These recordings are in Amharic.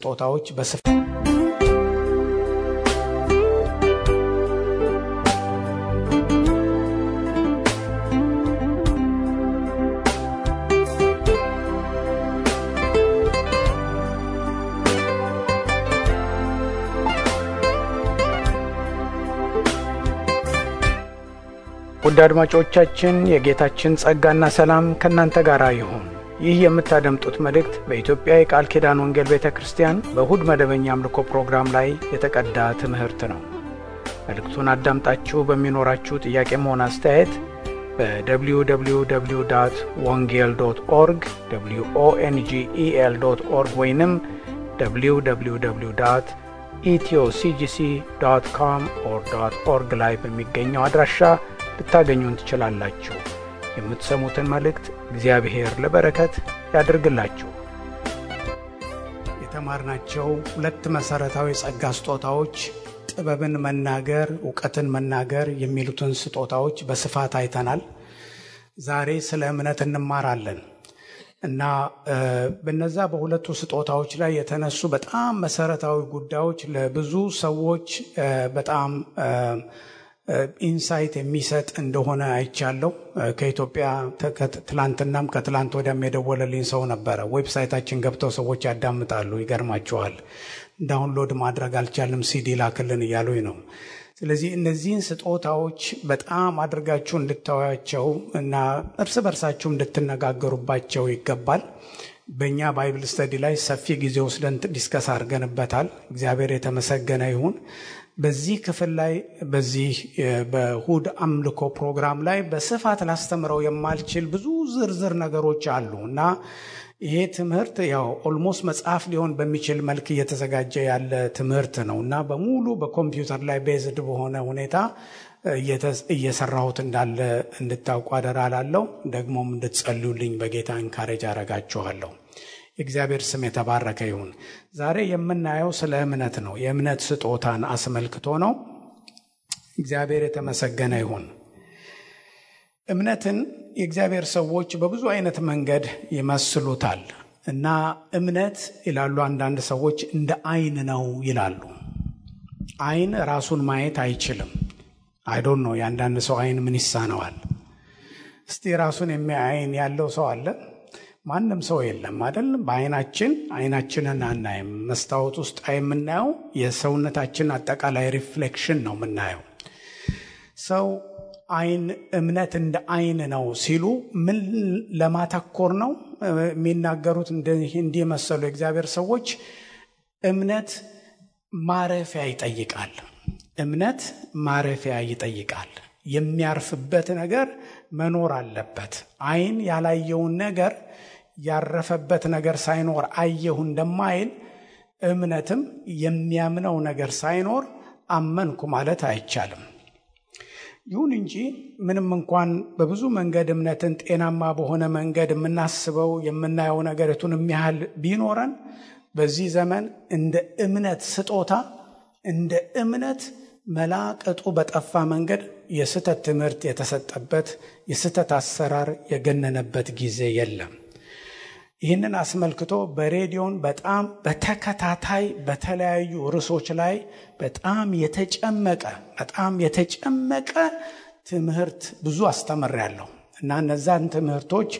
ስጦታዎች በስፋት ውድ አድማጮቻችን የጌታችን ጸጋና ሰላም ከናንተ ጋር ይሁን። ይህ የምታደምጡት መልእክት በኢትዮጵያ የቃል ኪዳን ወንጌል ቤተክርስቲያን በእሁድ መደበኛ አምልኮ ፕሮግራም ላይ የተቀዳ ትምህርት ነው። መልእክቱን አዳምጣችሁ በሚኖራችሁ ጥያቄም ሆነ አስተያየት በwww.wongel.org wongel.org ወይንም www.ethioCGC.com/org ላይ በሚገኘው አድራሻ ልታገኙን ትችላላችሁ። የምትሰሙትን መልእክት እግዚአብሔር ለበረከት ያድርግላችሁ። የተማርናቸው ሁለት መሰረታዊ ጸጋ ስጦታዎች ጥበብን መናገር፣ ዕውቀትን መናገር የሚሉትን ስጦታዎች በስፋት አይተናል። ዛሬ ስለ እምነት እንማራለን እና በእነዛ በሁለቱ ስጦታዎች ላይ የተነሱ በጣም መሰረታዊ ጉዳዮች ለብዙ ሰዎች በጣም ኢንሳይት የሚሰጥ እንደሆነ አይቻለሁ። ከኢትዮጵያ ትላንትናም ከትላንት ወዲያም የደወለልኝ ሰው ነበረ። ዌብሳይታችን ገብተው ሰዎች ያዳምጣሉ። ይገርማቸዋል። ዳውንሎድ ማድረግ አልቻለም ሲዲ ላክልን እያሉኝ ነው። ስለዚህ እነዚህን ስጦታዎች በጣም አድርጋችሁ እንድታዩአቸው እና እርስ በርሳችሁ እንድትነጋገሩባቸው ይገባል። በእኛ ባይብል ስተዲ ላይ ሰፊ ጊዜ ወስደን ዲስከስ አድርገንበታል። እግዚአብሔር የተመሰገነ ይሁን። በዚህ ክፍል ላይ በዚህ በእሁድ አምልኮ ፕሮግራም ላይ በስፋት ላስተምረው የማልችል ብዙ ዝርዝር ነገሮች አሉ እና ይሄ ትምህርት ያው ኦልሞስት መጽሐፍ ሊሆን በሚችል መልክ እየተዘጋጀ ያለ ትምህርት ነው እና በሙሉ በኮምፒውተር ላይ ቤዝድ በሆነ ሁኔታ እየሰራሁት እንዳለ እንድታውቁ አደራ እላለሁ። ደግሞም እንድትጸልዩልኝ በጌታ እንካሬጅ አረጋችኋለሁ። የእግዚአብሔር ስም የተባረከ ይሁን። ዛሬ የምናየው ስለ እምነት ነው። የእምነት ስጦታን አስመልክቶ ነው። እግዚአብሔር የተመሰገነ ይሁን። እምነትን የእግዚአብሔር ሰዎች በብዙ አይነት መንገድ ይመስሉታል እና እምነት ይላሉ አንዳንድ ሰዎች እንደ አይን ነው ይላሉ። አይን ራሱን ማየት አይችልም። አይ ዶንት ኖ የአንዳንድ ሰው አይን ምን ይሳነዋል? እስቲ ራሱን የሚያይ አይን ያለው ሰው አለ? ማንም ሰው የለም አይደል? አይናችንን አናይም። መስታወት ውስጥ የምናየው የሰውነታችን አጠቃላይ ሪፍሌክሽን ነው የምናየው። ሰው አይን እምነት እንደ አይን ነው ሲሉ ምን ለማተኮር ነው የሚናገሩት? እንዲህ መሰሉ የእግዚአብሔር ሰዎች እምነት ማረፊያ ይጠይቃል። እምነት ማረፊያ ይጠይቃል። የሚያርፍበት ነገር መኖር አለበት። አይን ያላየውን ነገር ያረፈበት ነገር ሳይኖር አየሁ እንደማይል እምነትም የሚያምነው ነገር ሳይኖር አመንኩ ማለት አይቻልም። ይሁን እንጂ ምንም እንኳን በብዙ መንገድ እምነትን ጤናማ በሆነ መንገድ የምናስበው የምናየው ነገርቱን የሚያህል ቢኖረን በዚህ ዘመን እንደ እምነት ስጦታ እንደ እምነት መላቀጡ በጠፋ መንገድ የስተት ትምህርት የተሰጠበት የስተት አሰራር የገነነበት ጊዜ የለም። ይህንን አስመልክቶ በሬዲዮን በጣም በተከታታይ በተለያዩ ርዕሶች ላይ በጣም የተጨመቀ ትምህርት ብዙ አስተምሬያለሁ እና እነዛን ትምህርቶች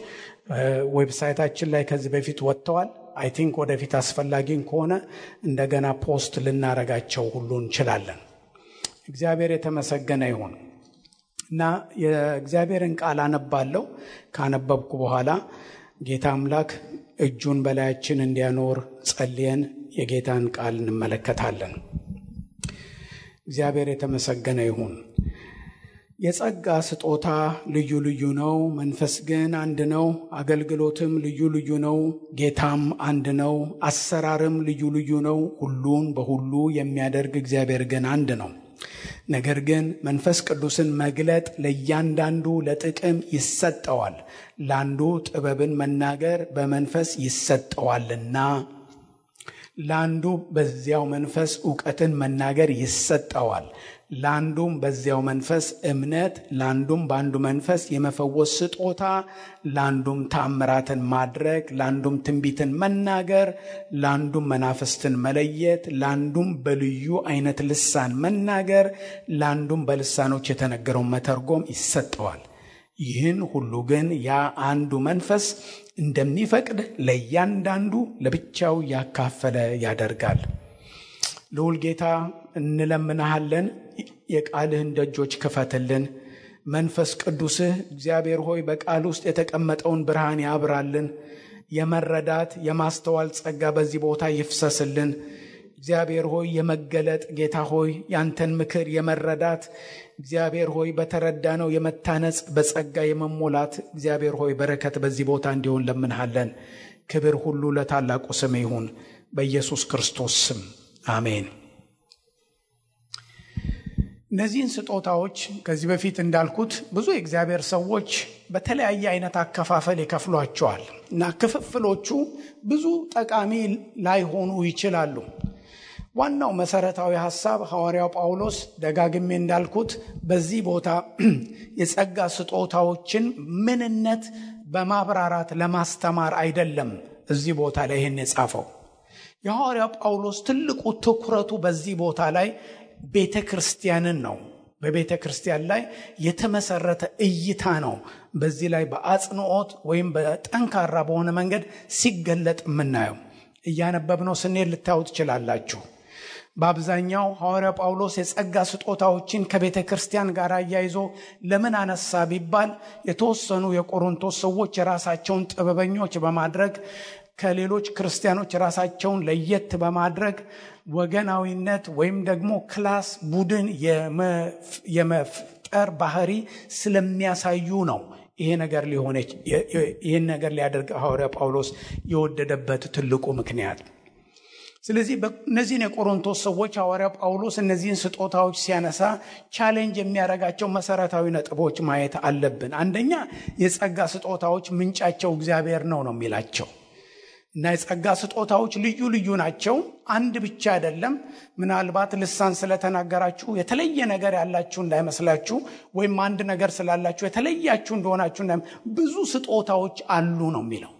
ዌብሳይታችን ላይ ከዚህ በፊት ወጥተዋል። አይ ቲንክ ወደፊት አስፈላጊ ከሆነ እንደገና ፖስት ልናረጋቸው ሁሉ እንችላለን። እግዚአብሔር የተመሰገነ ይሁን እና የእግዚአብሔርን ቃል አነባለሁ። ካነበብኩ በኋላ ጌታ አምላክ እጁን በላያችን እንዲያኖር ጸልየን የጌታን ቃል እንመለከታለን። እግዚአብሔር የተመሰገነ ይሁን። የጸጋ ስጦታ ልዩ ልዩ ነው፣ መንፈስ ግን አንድ ነው። አገልግሎትም ልዩ ልዩ ነው፣ ጌታም አንድ ነው። አሰራርም ልዩ ልዩ ነው፣ ሁሉን በሁሉ የሚያደርግ እግዚአብሔር ግን አንድ ነው። ነገር ግን መንፈስ ቅዱስን መግለጥ ለእያንዳንዱ ለጥቅም ይሰጠዋል። ለአንዱ ጥበብን መናገር በመንፈስ ይሰጠዋልና፣ ለአንዱ በዚያው መንፈስ ዕውቀትን መናገር ይሰጠዋል፣ ለአንዱም በዚያው መንፈስ እምነት፣ ለአንዱም በአንዱ መንፈስ የመፈወስ ስጦታ፣ ለአንዱም ተአምራትን ማድረግ፣ ለአንዱም ትንቢትን መናገር፣ ለአንዱም መናፍስትን መለየት፣ ለአንዱም በልዩ አይነት ልሳን መናገር፣ ለአንዱም በልሳኖች የተነገረውን መተርጎም ይሰጠዋል። ይህን ሁሉ ግን ያ አንዱ መንፈስ እንደሚፈቅድ ለእያንዳንዱ ለብቻው ያካፈለ ያደርጋል። ልዑል ጌታ እንለምንሃለን፣ የቃልህን ደጆች ክፈትልን። መንፈስ ቅዱስህ እግዚአብሔር ሆይ በቃል ውስጥ የተቀመጠውን ብርሃን ያብራልን። የመረዳት የማስተዋል ጸጋ በዚህ ቦታ ይፍሰስልን። እግዚአብሔር ሆይ የመገለጥ ጌታ ሆይ ያንተን ምክር የመረዳት እግዚአብሔር ሆይ በተረዳነው የመታነጽ በጸጋ የመሞላት እግዚአብሔር ሆይ በረከት በዚህ ቦታ እንዲሆን ለምንሃለን። ክብር ሁሉ ለታላቁ ስም ይሁን፣ በኢየሱስ ክርስቶስ ስም አሜን። እነዚህን ስጦታዎች ከዚህ በፊት እንዳልኩት ብዙ የእግዚአብሔር ሰዎች በተለያየ አይነት አከፋፈል ይከፍሏቸዋል እና ክፍፍሎቹ ብዙ ጠቃሚ ላይሆኑ ይችላሉ። ዋናው መሰረታዊ ሐሳብ ሐዋርያው ጳውሎስ ደጋግሜ እንዳልኩት በዚህ ቦታ የጸጋ ስጦታዎችን ምንነት በማብራራት ለማስተማር አይደለም እዚህ ቦታ ላይ ይሄን የጻፈው። የሐዋርያው ጳውሎስ ትልቁ ትኩረቱ በዚህ ቦታ ላይ ቤተክርስቲያንን ነው። በቤተክርስቲያን ላይ የተመሰረተ እይታ ነው። በዚህ ላይ በአጽንኦት ወይም በጠንካራ በሆነ መንገድ ሲገለጥ የምናየው እያነበብነው ስንሄድ ልታዩ ትችላላችሁ። በአብዛኛው ሐዋርያው ጳውሎስ የጸጋ ስጦታዎችን ከቤተ ክርስቲያን ጋር አያይዞ ለምን አነሳ ቢባል የተወሰኑ የቆሮንቶስ ሰዎች የራሳቸውን ጥበበኞች በማድረግ ከሌሎች ክርስቲያኖች ራሳቸውን ለየት በማድረግ ወገናዊነት ወይም ደግሞ ክላስ ቡድን የመፍጠር ባህሪ ስለሚያሳዩ ነው። ይሄን ነገር ሊያደርግ ሐዋርያው ጳውሎስ የወደደበት ትልቁ ምክንያት። ስለዚህ እነዚህን የቆሮንቶስ ሰዎች ሐዋርያው ጳውሎስ እነዚህን ስጦታዎች ሲያነሳ ቻሌንጅ የሚያደርጋቸው መሰረታዊ ነጥቦች ማየት አለብን። አንደኛ የጸጋ ስጦታዎች ምንጫቸው እግዚአብሔር ነው የሚላቸው እና የጸጋ ስጦታዎች ልዩ ልዩ ናቸው። አንድ ብቻ አይደለም። ምናልባት ልሳን ስለተናገራችሁ የተለየ ነገር ያላችሁ እንዳይመስላችሁ፣ ወይም አንድ ነገር ስላላችሁ የተለያችሁ እንደሆናችሁ ብዙ ስጦታዎች አሉ ነው የሚለው።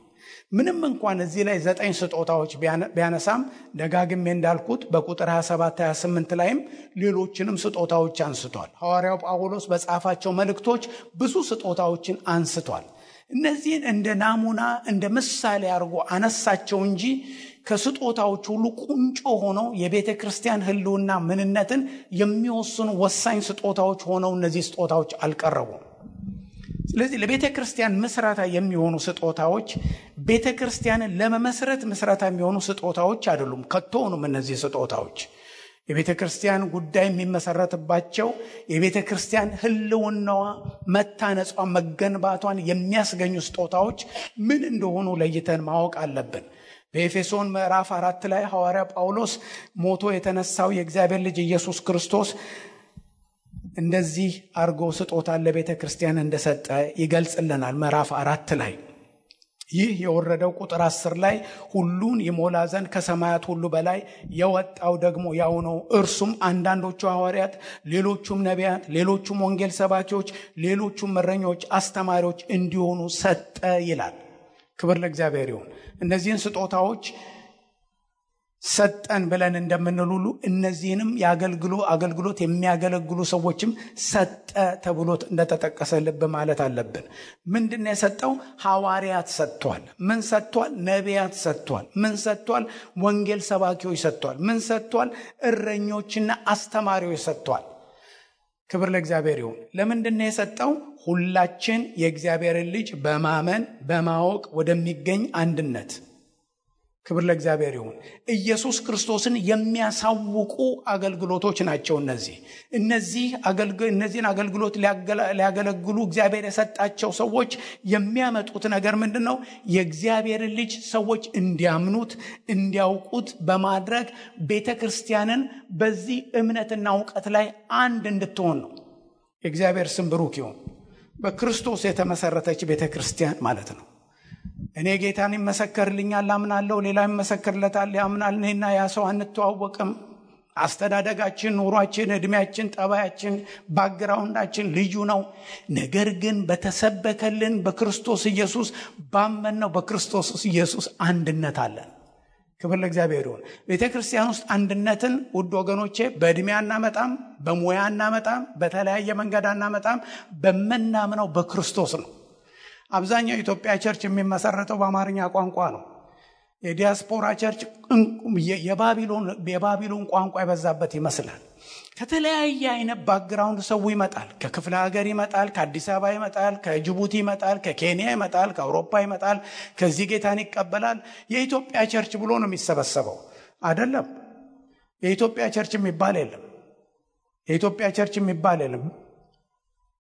ምንም እንኳን እዚህ ላይ 9 ስጦታዎች ቢያነሳም ደጋግሜ እንዳልኩት በቁጥር 27 28 ላይም ሌሎችንም ስጦታዎች አንስቷል። ሐዋርያው ጳውሎስ በጻፋቸው መልእክቶች ብዙ ስጦታዎችን አንስቷል። እነዚህን እንደ ናሙና እንደ ምሳሌ አድርጎ አነሳቸው እንጂ ከስጦታዎች ሁሉ ቁንጮ ሆነው የቤተ ክርስቲያን ሕልውና ምንነትን የሚወስኑ ወሳኝ ስጦታዎች ሆነው እነዚህ ስጦታዎች አልቀረቡም። ስለዚህ ለቤተ ክርስቲያን መስራታ የሚሆኑ ስጦታዎች ቤተ ክርስቲያንን ለመመስረት መስራታ የሚሆኑ ስጦታዎች አይደሉም። ከቶውንም እነዚህ ስጦታዎች የቤተ ክርስቲያን ጉዳይ የሚመሰረትባቸው የቤተ ክርስቲያን ሕልውናዋ መታነጿ መገንባቷን የሚያስገኙ ስጦታዎች ምን እንደሆኑ ለይተን ማወቅ አለብን። በኤፌሶን ምዕራፍ 4 ላይ ሐዋርያ ጳውሎስ ሞቶ የተነሳው የእግዚአብሔር ልጅ ኢየሱስ ክርስቶስ እንደዚህ አርጎ ስጦታ ለቤተ ክርስቲያን እንደሰጠ ይገልጽልናል። ምዕራፍ 4 ላይ ይህ የወረደው ቁጥር 10 ላይ ሁሉን ይሞላ ዘንድ ከሰማያት ሁሉ በላይ የወጣው ደግሞ ያው ነው። እርሱም አንዳንዶቹ ሐዋርያት፣ ሌሎቹም ነቢያት፣ ሌሎቹም ወንጌል ሰባኪዎች፣ ሌሎቹም እረኞች፣ አስተማሪዎች እንዲሆኑ ሰጠ ይላል። ክብር ለእግዚአብሔር ይሁን። እነዚህን ስጦታዎች ሰጠን ብለን እንደምንል ሁሉ እነዚህንም አገልግሎት የሚያገለግሉ ሰዎችም ሰጠ ተብሎ እንደተጠቀሰ ልብ ማለት አለብን። ምንድነው የሰጠው? ሐዋርያት ሰጥቷል። ምን ሰጥቷል? ነቢያት ሰጥቷል። ምን ሰጥቷል? ወንጌል ሰባኪዎች ሰጥቷል። ምን ሰጥቷል? እረኞችና አስተማሪዎች ሰጥቷል። ክብር ለእግዚአብሔር ይሁን። ለምንድነው የሰጠው? ሁላችን የእግዚአብሔርን ልጅ በማመን በማወቅ ወደሚገኝ አንድነት። ክብር ለእግዚአብሔር ይሁን። ኢየሱስ ክርስቶስን የሚያሳውቁ አገልግሎቶች ናቸው እነዚህን አገልግሎት ሊያገለግሉ እግዚአብሔር የሰጣቸው ሰዎች የሚያመጡት ነገር ምንድነው? የእግዚአብሔርን ልጅ ሰዎች እንዲያምኑት እንዲያውቁት በማድረግ ቤተክርስቲያንን በዚህ እምነትና ዕውቀት ላይ አንድ እንድትሆን ነው። የእግዚአብሔር ስም ብሩክ ይሁን። በክርስቶስ የተመሰረተች ቤተክርስቲያን ማለት ነው። እኔ ጌታን ይመሰክርልኛል አምናለሁ፣ ሌላ ይመሰክርለታል ያምናል። እኔና ያ ሰው አንተዋወቅም። አስተዳደጋችን፣ ኑሯችን፣ እድሜያችን፣ ጠባያችን፣ ባክግራውንዳችን ልዩ ነው። ነገር ግን በተሰበከልን በክርስቶስ ኢየሱስ ባመንነው በክርስቶስ ኢየሱስ አንድነት አለን። ክብር ለእግዚአብሔር ይሁን። ቤተክርስቲያን ውስጥ አንድነትን ውድ ወገኖቼ በእድሜ አናመጣም፣ በሙያ አናመጣም፣ በተለያየ መንገድ አናመጣም። በመናምነው በክርስቶስ ነው። አብዛኛው የኢትዮጵያ ቸርች የሚመሰረተው በአማርኛ ቋንቋ ነው። የዲያስፖራ ቸርች የባቢሎን ቋንቋ የበዛበት ይመስላል። ከተለያየ አይነት ባክግራውንድ ሰው ይመጣል። ከክፍለ ሀገር ይመጣል፣ ከአዲስ አበባ ይመጣል፣ ከጅቡቲ ይመጣል፣ ከኬንያ ይመጣል፣ ከአውሮፓ ይመጣል። ከዚህ ጌታን ይቀበላል። የኢትዮጵያ ቸርች ብሎ ነው የሚሰበሰበው አይደለም። የኢትዮጵያ ቸርች የሚባል የለም። የኢትዮጵያ ቸርች የሚባል የለም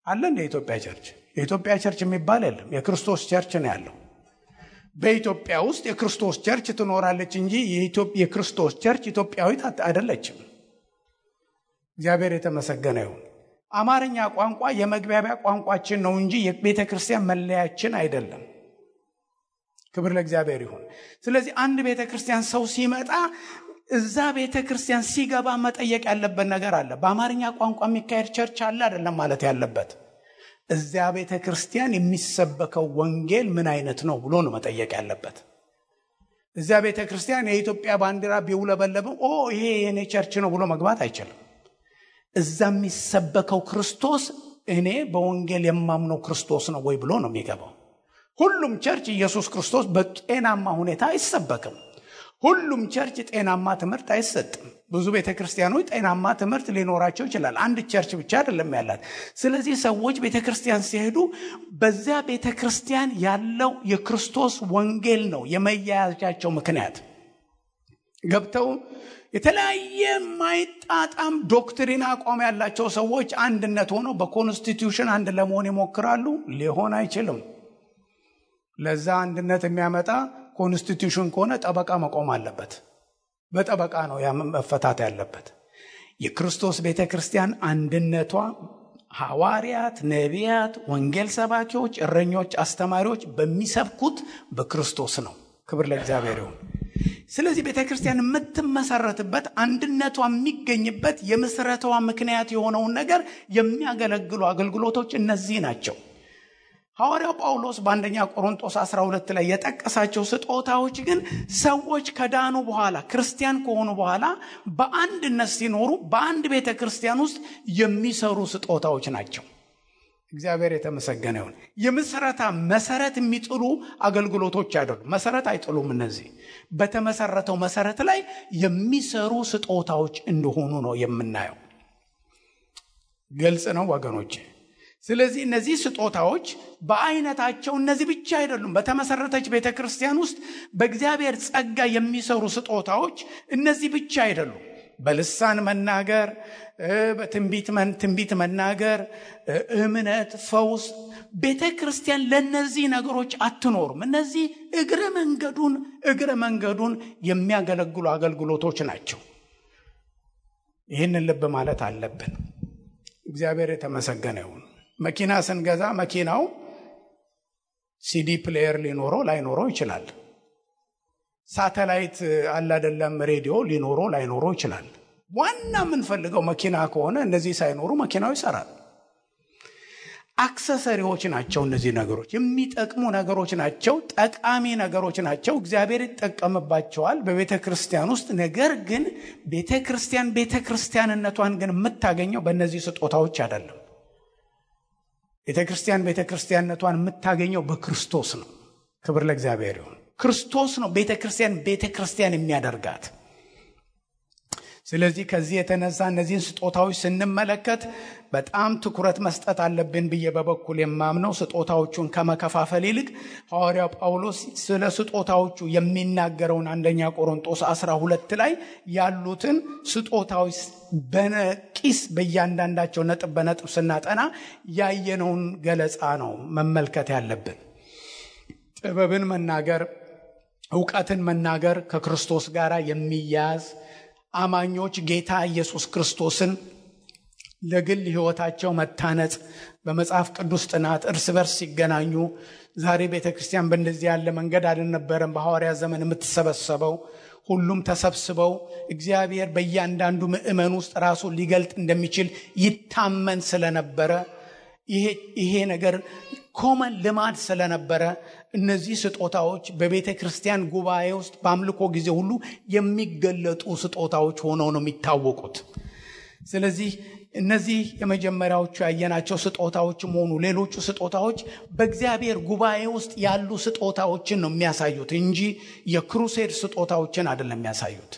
አለ እንደ ኢትዮጵያ ቸርች። የኢትዮጵያ ቸርች የሚባል የለም። የክርስቶስ ቸርች ነው ያለው። በኢትዮጵያ ውስጥ የክርስቶስ ቸርች ትኖራለች እንጂ የክርስቶስ ቸርች ኢትዮጵያዊት አይደለችም። እግዚአብሔር የተመሰገነ ይሁን። አማርኛ ቋንቋ የመግባቢያ ቋንቋችን ነው እንጂ የቤተክርስቲያን መለያችን አይደለም። ክብር ለእግዚአብሔር ይሁን። ስለዚህ አንድ ቤተክርስቲያን ሰው ሲመጣ እዛ ቤተክርስቲያን ሲገባ መጠየቅ ያለበት ነገር አለ። በአማርኛ ቋንቋ የሚካሄድ ቸርች አለ አይደለም ማለት ያለበት። እዚያ ቤተክርስቲያን የሚሰበከው ወንጌል ምን አይነት ነው ብሎ ነው መጠየቅ ያለበት። እዚያ ቤተክርስቲያን የኢትዮጵያ ባንዲራ ቢውለበለብም ይሄ የኔ ቸርች ነው ብሎ መግባት አይችልም። እዛ የሚሰበከው ክርስቶስ እኔ በወንጌል የማምነው ክርስቶስ ነው ወይ ብሎ ነው የሚገባው። ሁሉም ቸርች ኢየሱስ ክርስቶስ በጤናማ ሁኔታ አይሰበክም። ሁሉም ቸርች ጤናማ ትምህርት አይሰጥም። ብዙ ቤተክርስቲያኖች ጤናማ ትምህርት ሊኖራቸው ይችላል። አንድ ቸርች ብቻ አይደለም ያላት። ስለዚህ ሰዎች ቤተክርስቲያን ሲሄዱ በዚያ ቤተክርስቲያን ያለው የክርስቶስ ወንጌል ነው የመያያዛቸው ምክንያት። ገብተው የተለያየ ማይጣጣም ዶክትሪን አቋም ያላቸው ሰዎች አንድነት ሆነው በኮንስቲቲዩሽን አንድ ለመሆን ይሞክራሉ። ሊሆን አይችልም። ለዛ አንድነት የሚያመጣ ኮንስቲቲዩሽን ከሆነ ጠበቃ መቆም አለበት። በጠበቃ ነው መፈታት ያለበት። የክርስቶስ ቤተክርስቲያን አንድነቷ ሐዋርያት፣ ነቢያት፣ ወንጌል ሰባኪዎች፣ እረኞች፣ አስተማሪዎች በሚሰብኩት በክርስቶስ ነው። ክብር ለእግዚአብሔር ይሁን። ስለዚህ ቤተክርስቲያን የምትመሰረትበት አንድነቷ የሚገኝበት የምስረቷ ምክንያት የሆነውን ነገር የሚያገለግሉ አገልግሎቶች እነዚህ ናቸው። ሐዋርያው ጳውሎስ በአንደኛ ቆሮንቶስ 12 ላይ የጠቀሳቸው ስጦታዎች ግን ሰዎች ከዳኑ በኋላ ክርስቲያን ከሆኑ በኋላ በአንድነት ሲኖሩ በአንድ ቤተክርስቲያን ውስጥ የሚሰሩ ስጦታዎች ናቸው። እግዚአብሔር የተመሰገነ ይሁን። የምስረታ መሰረት የሚጥሉ አገልግሎቶች አይደሉም። መሰረት አይጥሉም። እነዚህ በተመሰረተው መሰረት ላይ የሚሰሩ ስጦታዎች እንደሆኑ ነው የምናየው። ግልጽ ነው ወገኖቼ። ስለዚህ እነዚህ ስጦታዎች በአይነታቸው እነዚህ ብቻ አይደሉም። በተመሰረተች ቤተክርስቲያን ውስጥ በእግዚአብሔር ጸጋ የሚሰሩ ስጦታዎች እነዚህ ብቻ አይደሉም። በልሳን መናገር፣ በትንቢት መናገር፣ እምነት፣ ፈውስ። ቤተክርስቲያን ለነዚህ ነገሮች አትኖርም። እነዚህ እግረ መንገዱን የሚያገለግሉ አገልግሎቶች ናቸው። ይህንን ልብ ማለት አለብን። እግዚአብሔር የተመሰገነ ይሁን። መኪና ስንገዛ መኪናው ሲዲ ፕሌየር ሊኖረው ላይኖረው ይችላል። ሳተላይት አለ አይደለም፣ ሬዲዮ ሊኖረው ላይኖረው ይችላል። ዋና የምንፈልገው መኪና ከሆነ እነዚህ ሳይኖሩ መኪናው ይሰራል። አክሰሰሪዎች ናቸው። እነዚህ ነገሮች የሚጠቅሙ ነገሮች ናቸው፣ ጠቃሚ ነገሮች ናቸው። እግዚአብሔር ይጠቀምባቸዋል በቤተክርስቲያን ውስጥ። ነገር ግን ቤተክርስቲያንነቷን ግን የምታገኘው በእነዚህ ስጦታዎች አይደለም። ቤተክርስቲያንነቷን የምታገኘው በክርስቶስ ነው። ክብር ለእግዚአብሔር ይሁን። ክርስቶስ ነው ቤተክርስቲያን የሚያደርጋት። ስለዚህ ከዚህ የተነሳ እነዚህን ስጦታዎች ስንመለከት በጣም ትኩረት መስጠት አለብን ብዬ በበኩል የማምነው ስጦታዎቹን ከመከፋፈል ይልቅ ሐዋርያው ጳውሎስ ስለ ስጦታዎቹ የሚናገረውን አንደኛ ቆሮንቶስ 12 ላይ ያሉትን ስጦታዎች በነቂስ በእያንዳንዳቸው ነጥብ በነጥብ ስናጠና ያየነውን ገለጻ ነው መመልከት ያለብን። ጥበብን መናገር፣ ዕውቀትን መናገር ከክርስቶስ ጋር የሚያዝ አማኞች ጌታ ኢየሱስ ክርስቶስን ለግል ሕይወታቸው መታነጽ፣ በመጽሐፍ ቅዱስ ጥናት እርስ በርስ ሲገናኙ። ዛሬ ቤተክርስቲያን በእንደዚህ ያለ መንገድ አልነበረም በሐዋርያት ዘመን የምትሰበሰበው። ሁሉም ተሰብስበው እግዚአብሔር በእያንዳንዱ ምእመን ውስጥ ራሱን ሊገልጥ እንደሚችል ይታመን ስለነበረ ይሄ ነገር ኮመን ልማድ ስለነበረ እነዚህ ስጦታዎች በቤተ ክርስቲያን ጉባኤ ውስጥ በአምልኮ ጊዜ ሁሉ የሚገለጡ ስጦታዎች ሆነው ነው የሚታወቁት። ስለዚህ እነዚህ የመጀመሪያዎቹ ያየናቸው ስጦታዎችም ሆኑ ሌሎቹ ስጦታዎች በእግዚአብሔር ጉባኤ ውስጥ ያሉ ስጦታዎችን ነው የሚያሳዩት እንጂ የክሩሴድ ስጦታዎችን አይደለም የሚያሳዩት።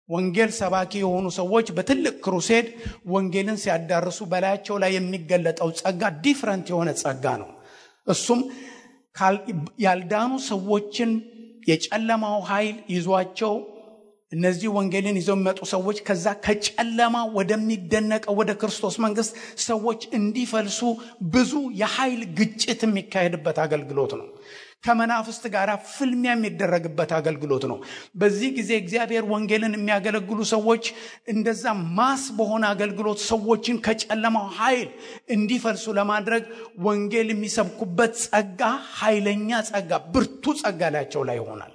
ወንጌል ሰባኪ የሆኑ ሰዎች በትልቅ ክሩሴድ ወንጌልን ሲያዳርሱ በላያቸው ላይ የሚገለጠው ጸጋ ዲፍረንት የሆነ ጸጋ ነው። እሱም ያልዳኑ ሰዎችን የጨለማው ኃይል ይዟቸው እነዚህ ወንጌልን ይዘው የሚመጡ ሰዎች ከዛ ከጨለማ ወደሚደነቀው ወደ ክርስቶስ መንግስት ሰዎች እንዲፈልሱ ብዙ የኃይል ግጭት የሚካሄድበት አገልግሎት ነው። ከመናፍስት ጋር ፍልሚያ የሚደረግበት አገልግሎት ነው። በዚህ ጊዜ እግዚአብሔር ወንጌልን የሚያገለግሉ ሰዎች እንደዛ ማስ በሆነ አገልግሎት ሰዎችን ከጨለማው ኃይል እንዲፈልሱ ለማድረግ ወንጌል የሚሰብኩበት ጸጋ ኃይለኛ ጸጋ፣ ብርቱ ጸጋ ላያቸው ላይ ይሆናል።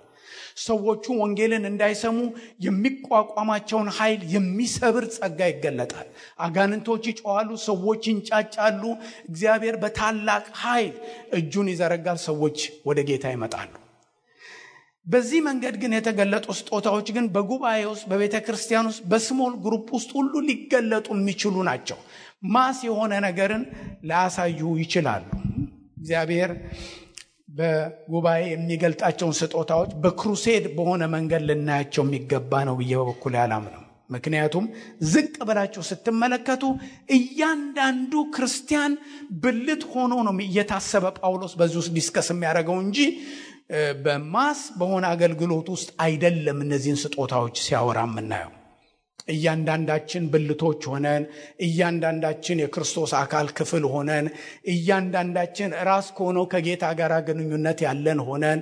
ሰዎቹ ወንጌልን እንዳይሰሙ የሚቋቋማቸውን ኃይል የሚሰብር ጸጋ ይገለጣል። አጋንንቶች ይጮኻሉ፣ ሰዎች ይንጫጫሉ። እግዚአብሔር በታላቅ ኃይል እጁን ይዘረጋል፣ ሰዎች ወደ ጌታ ይመጣሉ። በዚህ መንገድ ግን የተገለጡ ስጦታዎች ግን በጉባኤ ውስጥ በቤተ ክርስቲያን ውስጥ በስሞል ግሩፕ ውስጥ ሁሉ ሊገለጡ የሚችሉ ናቸው። ማስ የሆነ ነገርን ላያሳዩ ይችላሉ። እግዚአብሔር በጉባኤ የሚገልጣቸውን ስጦታዎች በክሩሴድ በሆነ መንገድ ልናያቸው የሚገባ ነው ብዬ በበኩሌ አላምንም። ምክንያቱም ዝቅ ብላችሁ ስትመለከቱ እያንዳንዱ ክርስቲያን ብልት ሆኖ ነው እየታሰበ ጳውሎስ በዚህ ውስጥ ዲስከስ የሚያደርገው እንጂ በማስ በሆነ አገልግሎት ውስጥ አይደለም። እነዚህን ስጦታዎች ሲያወራ የምናየው እያንዳንዳችን ብልቶች ሆነን፣ እያንዳንዳችን የክርስቶስ አካል ክፍል ሆነን፣ እያንዳንዳችን ራስ ከሆነው ከጌታ ጋር ግንኙነት ያለን ሆነን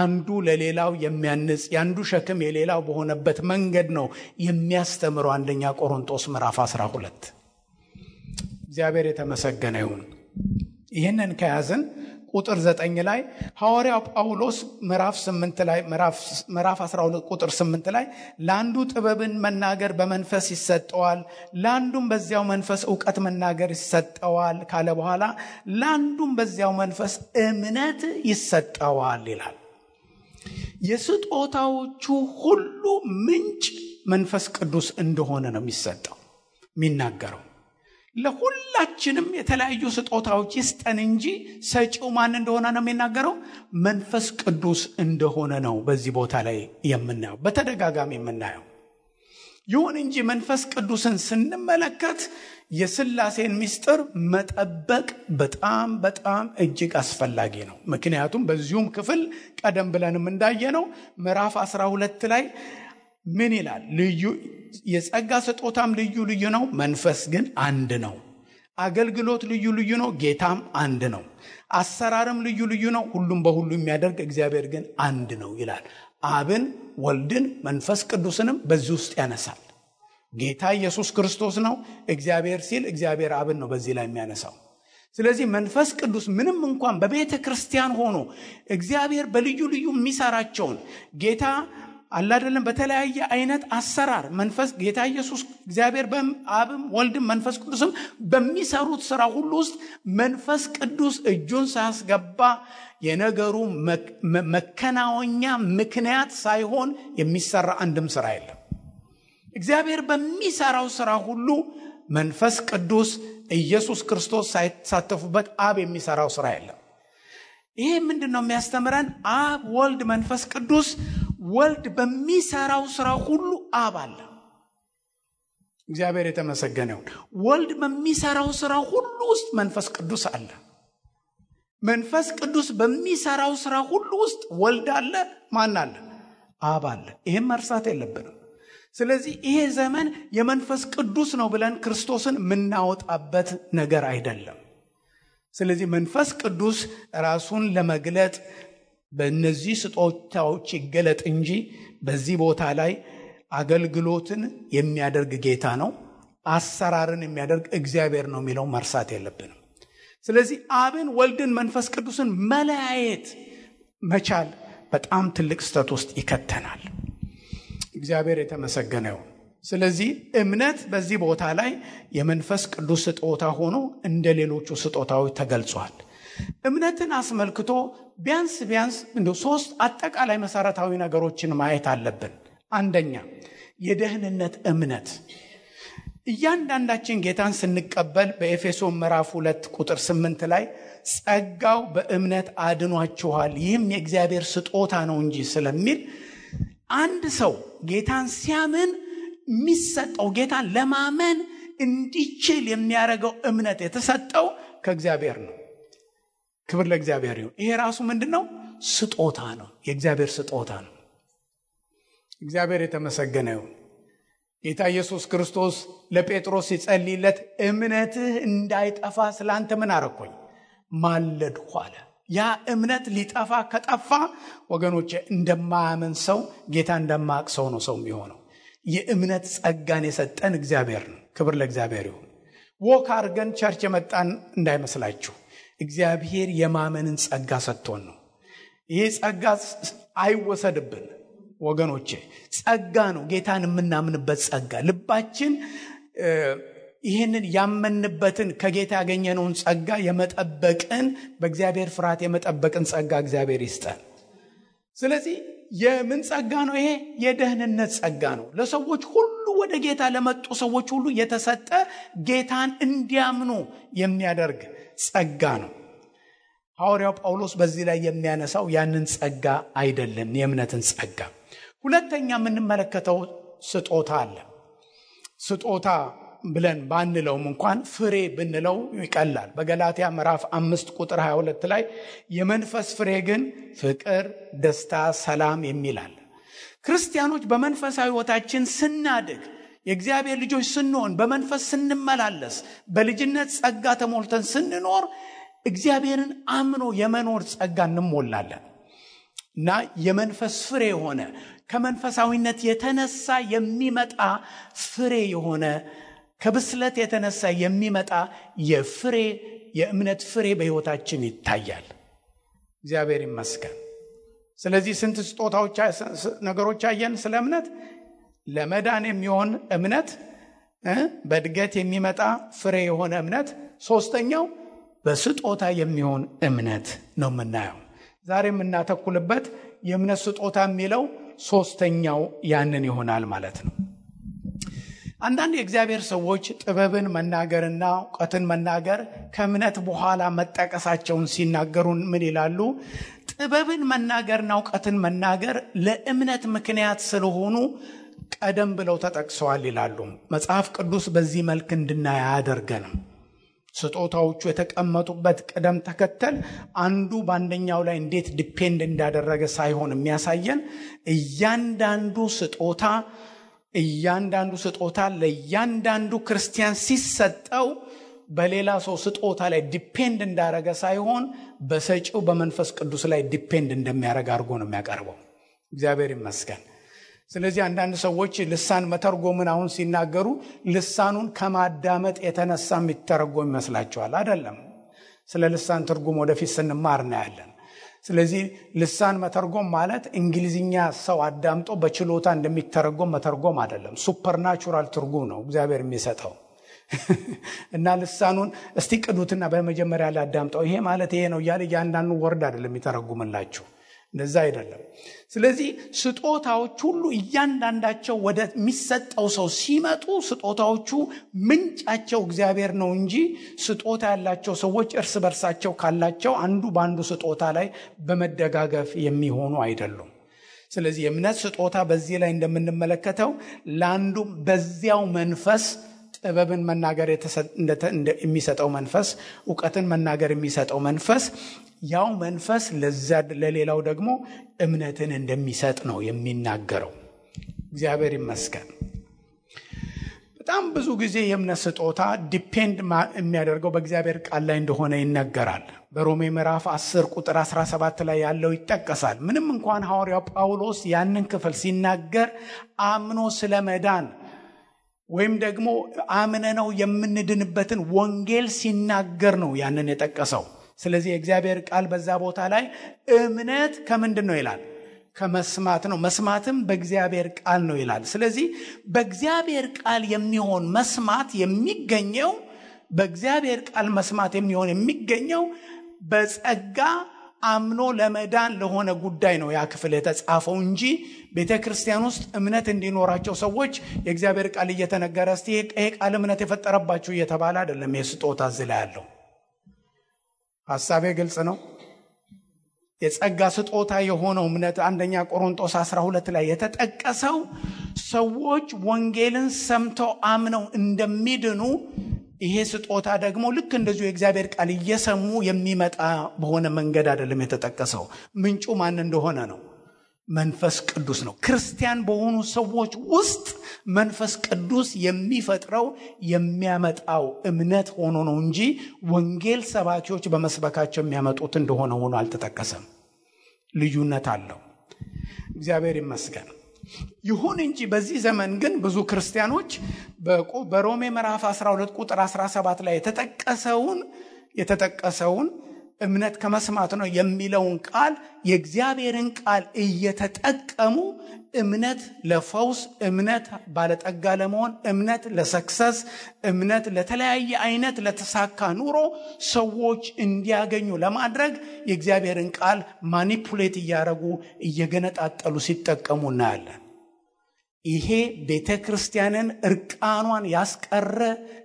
አንዱ ለሌላው የሚያንጽ ያንዱ ሸክም የሌላው በሆነበት መንገድ ነው የሚያስተምረው አንደኛ ቆሮንቶስ ምዕራፍ 12። እግዚአብሔር የተመሰገነ ይሁን። ይህንን ከያዝን ቁጥር 9 ላይ ሐዋርያው ጳውሎስ ምዕራፍ 8 ላይ ምዕራፍ 12 ቁጥር 8 ላይ ለአንዱ ጥበብን መናገር በመንፈስ ይሰጠዋል፣ ለአንዱም በዚያው መንፈስ ዕውቀት መናገር ይሰጠዋል ካለ በኋላ ለአንዱም በዚያው መንፈስ እምነት ይሰጠዋል ይላል። የስጦታዎቹ ሁሉ ምንጭ መንፈስ ቅዱስ እንደሆነ ነው የሚሰጠው የሚናገረው። ለሁላችንም የተለያዩ ስጦታዎች ይስጠን እንጂ ሰጪው ማን እንደሆነ ነው የሚናገረው፣ መንፈስ ቅዱስ እንደሆነ ነው በዚህ ቦታ ላይ የምናየው፣ በተደጋጋሚ የምናየው። ይሁን እንጂ መንፈስ ቅዱስን ስንመለከት የሥላሴን ምስጢር መጠበቅ በጣም በጣም እጅግ አስፈላጊ ነው። ምክንያቱም በዚሁም ክፍል ቀደም ብለንም እንዳየነው ምዕራፍ 12 ላይ ምን ይላል? ልዩ የጸጋ ስጦታም ልዩ ልዩ ነው፣ መንፈስ ግን አንድ ነው። አገልግሎት ልዩ ልዩ ነው፣ ጌታም አንድ ነው። አሰራርም ልዩ ልዩ ነው፣ ሁሉም በሁሉ የሚያደርግ እግዚአብሔር ግን አንድ ነው ይላል። አብን፣ ወልድን፣ መንፈስ ቅዱስንም በዚህ ውስጥ ያነሳል። ጌታ ኢየሱስ ክርስቶስ ነው እግዚአብሔር ሲል እግዚአብሔር አብን ነው በዚህ ላይ የሚያነሳው። ስለዚህ መንፈስ ቅዱስ ምንም እንኳን በቤተ ክርስቲያን ሆኖ እግዚአብሔር በልዩ ልዩ የሚሰራቸውን ጌታ አላደለም በተለያየ አይነት አሰራር መንፈስ ጌታ ኢየሱስ እግዚአብሔር በአብም ወልድም መንፈስ ቅዱስም በሚሰሩት ስራ ሁሉ ውስጥ መንፈስ ቅዱስ እጁን ሳያስገባ የነገሩ መከናወኛ ምክንያት ሳይሆን የሚሰራ አንድም ስራ የለም። እግዚአብሔር በሚሰራው ስራ ሁሉ መንፈስ ቅዱስ ኢየሱስ ክርስቶስ ሳይሳተፉበት አብ የሚሰራው ስራ የለም። ይሄ ምንድነው የሚያስተምረን? አብ፣ ወልድ፣ መንፈስ ቅዱስ ወልድ በሚሰራው ስራ ሁሉ አብ አለ። እግዚአብሔር የተመሰገነ ይሁን። ወልድ በሚሰራው ስራ ሁሉ ውስጥ መንፈስ ቅዱስ አለ። መንፈስ ቅዱስ በሚሰራው ስራ ሁሉ ውስጥ ወልድ አለ። ማን አለ? አብ አለ። ይሄን መርሳት የለብንም። ስለዚህ ይሄ ዘመን የመንፈስ ቅዱስ ነው ብለን ክርስቶስን የምናወጣበት ነገር አይደለም። ስለዚህ መንፈስ ቅዱስ ራሱን ለመግለጥ በእነዚህ ስጦታዎች ይገለጥ እንጂ በዚህ ቦታ ላይ አገልግሎትን የሚያደርግ ጌታ ነው። አሰራርን የሚያደርግ እግዚአብሔር ነው የሚለው መርሳት የለብንም። ስለዚህ አብን፣ ወልድን፣ መንፈስ ቅዱስን መለያየት መቻል በጣም ትልቅ ስህተት ውስጥ ይከተናል። እግዚአብሔር የተመሰገነ ይሁን። ስለዚህ እምነት በዚህ ቦታ ላይ የመንፈስ ቅዱስ ስጦታ ሆኖ እንደ ሌሎቹ ስጦታዎች ተገልጿል። እምነትን አስመልክቶ ቢያንስ እንደ 3 አጠቃላይ መሰረታዊ ነገሮችን ማየት አለብን። አንደኛ የደህንነት እምነት። እያንዳንዳችን ጌታን ስንቀበል በኤፌሶን ምዕራፍ 2 ቁጥር 8 ላይ ጸጋው በእምነት አድኗችኋል ይህም የእግዚአብሔር ስጦታ ነው እንጂ ስለሚል አንድ ሰው ጌታን ሲያምን የሚሰጠው ጌታን ለማመን እንዲችል የሚያደርገው እምነት የተሰጠው ከእግዚአብሔር ነው። ክብር ለእግዚአብሔር ይሁን። ይሄ ራሱ ምንድነው? ስጦታ ነው። የእግዚአብሔር ስጦታ ነው። እግዚአብሔር የተመሰገነ ይሁን። ጌታ ኢየሱስ ክርስቶስ ለጴጥሮስ ሲጸልይለት እምነትህ እንዳይጠፋ ስላንተ ምን አረኩኝ? ማለድኩ አለ። ያ እምነት ሊጠፋ ከጠፋ ወገኖቼ እንደማያምን ሰው ጌታ እንደማያውቅ ሰው ነው ሰው የሚሆነው። የእምነት ጸጋን የሰጠን እግዚአብሔር ነው። ክብር ለእግዚአብሔር ይሁን። ወክ አድርገን ቸርች የመጣን እንዳይመስላችሁ። እግዚአብሔር የማመንን ጸጋ ሰጥቶን ነው። ይሄ ጸጋ አይወሰድብን ወገኖቼ። ጸጋ ነው፣ ጌታን የምናምንበት ጸጋ። ልባችን ይህንን ያመንበትን ከጌታ ያገኘነውን ጸጋ የመጠበቅን በእግዚአብሔር ፍርሃት የመጠበቅን ጸጋ እግዚአብሔር ይስጠን። ስለዚህ የምን ጸጋ ነው? ይሄ የደህንነት ጸጋ ነው። ለሰዎች ሁሉ ወደ ጌታ ለመጡ ሰዎች ሁሉ የተሰጠ ጌታን እንዲያምኑ የሚያደርግ ጸጋ ነው። ሐዋርያው ጳውሎስ በዚህ ላይ የሚያነሳው ያንን ጸጋ አይደለም፣ የእምነትን ጸጋ። ሁለተኛ የምንመለከተው ስጦታ አለ። ስጦታ ብለን ባንለውም እንኳን ፍሬ ብንለው ይቀላል። በገላትያ ምዕራፍ 5 ቁጥር 22 ላይ የመንፈስ ፍሬ ግን ፍቅር፣ ደስታ፣ ሰላም የሚላል። ክርስቲያኖች በመንፈሳዊ ሕይወታችን ስናድግ፣ የእግዚአብሔር ልጆች ስንሆን፣ በመንፈስ ስንመላለስ፣ በልጅነት ጸጋ ተሞልተን ስንኖር እግዚአብሔርን አምኖ የመኖር ጸጋ እንሞላለን እና የመንፈስ ፍሬ የሆነ ከመንፈሳዊነት የተነሳ የሚመጣ ፍሬ የሆነ ከብስለት የተነሳ የሚመጣ የእምነት ፍሬ በሕይወታችን ይታያል። እግዚአብሔር ይመስገን። ስለዚህ ስንት ስጦታዎች ነገሮች አየን ስለ እምነት። ለመዳን የሚሆን እምነት፣ በእድገት የሚመጣ ፍሬ የሆነ እምነት፣ ሶስተኛው በስጦታ የሚሆን እምነት ነው የምናየው። ዛሬ የምናተኩልበት የእምነት ስጦታ የሚለው ሶስተኛው ያንን ይሆናል ማለት ነው። አንዳንድ የእግዚአብሔር ሰዎች ጥበብን መናገርና ዕውቀትን መናገር ከእምነት በኋላ መጠቀሳቸውን ሲናገሩ ምን ይላሉ? ጥበብን መናገርና ዕውቀትን መናገር ለእምነት ምክንያት ስለሆኑ ቀደም ብለው ተጠቅሰዋል ይላሉ። መጽሐፍ ቅዱስ በዚህ መልክ እንድናይ አያደርገንም። ስጦታዎቹ የተቀመጡበት ቅደም ተከተል አንዱ በአንደኛው ላይ እንዴት ዲፔንድ እንዳደረገ ሳይሆን የሚያሳየን እያንዳንዱ ስጦታ ለእያንዳንዱ ክርስቲያን ሲሰጠው በሌላ ሰው ስጦታ ላይ ዲፔንድ እንዳደረገ ሳይሆን በሰጪው በመንፈስ ቅዱስ ላይ ዲፔንድ እንደሚያደርግ አድርጎ ነው የሚያቀርበው። እግዚአብሔር ይመስገን። ስለዚህ አንዳንድ ሰዎች ልሳን መተርጎምን አሁን ሲናገሩ ልሳኑን ከማዳመጥ የተነሳ የሚተረጎም ይመስላቸዋል። አይደለም። ስለ ልሳን ትርጉም ወደፊት ስንማር እናያለን። ስለዚህ ልሳን መተርጎም ማለት እንግሊዝኛ ሰው አዳምጦ በችሎታ እንደሚተረጎም መተርጎም አይደለም። ሱፐርናቹራል ትርጉም ነው እግዚአብሔር የሚሰጠው እና ልሳኑን እስቲ ቅዱትና በመጀመሪያ ላይ አዳምጠው ይሄ ማለት ይሄ ነው እያለ እያንዳንዱ ወርድ አይደለም የሚተረጉምላችሁ። እንደዛ አይደለም። ስለዚህ ስጦታዎች ሁሉ እያንዳንዳቸው ወደ የሚሰጠው ሰው ሲመጡ ስጦታዎቹ ምንጫቸው እግዚአብሔር ነው እንጂ ስጦታ ያላቸው ሰዎች እርስ በርሳቸው ካላቸው አንዱ በአንዱ ስጦታ ላይ በመደጋገፍ የሚሆኑ አይደሉም። ስለዚህ የእምነት ስጦታ በዚህ ላይ እንደምንመለከተው ለአንዱ በዚያው መንፈስ ጥበብን መናገር የሚሰጠው መንፈስ፣ ዕውቀትን መናገር የሚሰጠው መንፈስ፣ ያው መንፈስ ለሌላው ደግሞ እምነትን እንደሚሰጥ ነው የሚናገረው። እግዚአብሔር ይመስገን። በጣም ብዙ ጊዜ የእምነት ስጦታ ዲፔንድ የሚያደርገው በእግዚአብሔር ቃል ላይ እንደሆነ ይነገራል። በሮሜ ምዕራፍ 10 ቁጥር 17 ላይ ያለው ይጠቀሳል። ምንም እንኳን ሐዋርያው ጳውሎስ ያንን ክፍል ሲናገር አምኖ ስለመዳን ወይም ደግሞ አምነነው የምንድንበትን ወንጌል ሲናገር ነው ያንን የጠቀሰው። ስለዚህ የእግዚአብሔር ቃል በዛ ቦታ ላይ እምነት ከምንድን ነው ይላል? ከመስማት ነው፣ መስማትም በእግዚአብሔር ቃል ነው ይላል። ስለዚህ በእግዚአብሔር ቃል የሚሆን መስማት የሚገኘው በእግዚአብሔር ቃል መስማት የሚገኘው በጸጋ አምኖ ለመዳን ለሆነ ጉዳይ ነው ያ ክፍል የተጻፈው እንጂ ቤተክርስቲያን ውስጥ እምነት እንዲኖራቸው ሰዎች የእግዚአብሔር ቃል እየተነገረ እስቲ ይሄ ቃል እምነት የፈጠረባችሁ እየተባለ አይደለም። የስጦታ ዝላ ያለው ሐሳቤ ግልጽ ነው። የጸጋ ስጦታ የሆነው እምነት አንደኛ ቆሮንቶስ 12 ላይ የተጠቀሰው ሰዎች ወንጌልን ሰምተው አምነው እንደሚድኑ፣ ይሄ ስጦታ ደግሞ ልክ እንደዚሁ የእግዚአብሔር ቃል እየሰሙ የሚመጣ በሆነ መንገድ አይደለም የተጠቀሰው። ምንጩ ማን እንደሆነ ነው? መንፈስ ቅዱስ ነው። ክርስቲያን በሆኑ ሰዎች ውስጥ መንፈስ ቅዱስ የሚፈጥረው የሚያመጣው እምነት ሆኖ ነው እንጂ ወንጌል ሰባኪዎች በመስበካቸው የሚያመጡት እንደሆነ ሆኖ አልተጠቀሰም። ልዩነት አለው። እግዚአብሔር ይመስገን። ይሁን እንጂ በዚህ ዘመን ግን ብዙ ክርስቲያኖች በሮሜ ምዕራፍ 12 ቁጥር 17 ላይ የተጠቀሰውን እምነት ከመስማት ነው የሚለውን ቃል የእግዚአብሔርን ቃል እየተጠቀሙ እምነት ለፈውስ፣ እምነት ባለጠጋ ለመሆን፣ እምነት ለሰክሰስ፣ እምነት ለተለያየ አይነት ለተሳካ ኑሮ ሰዎች እንዲያገኙ ለማድረግ የእግዚአብሔርን ቃል ማኒፑሌት እያደረጉ እየገነጣጠሉ ሲጠቀሙ እናያለን። ይሄ ቤተክርስቲያንን እርቃኗን ያስቀረ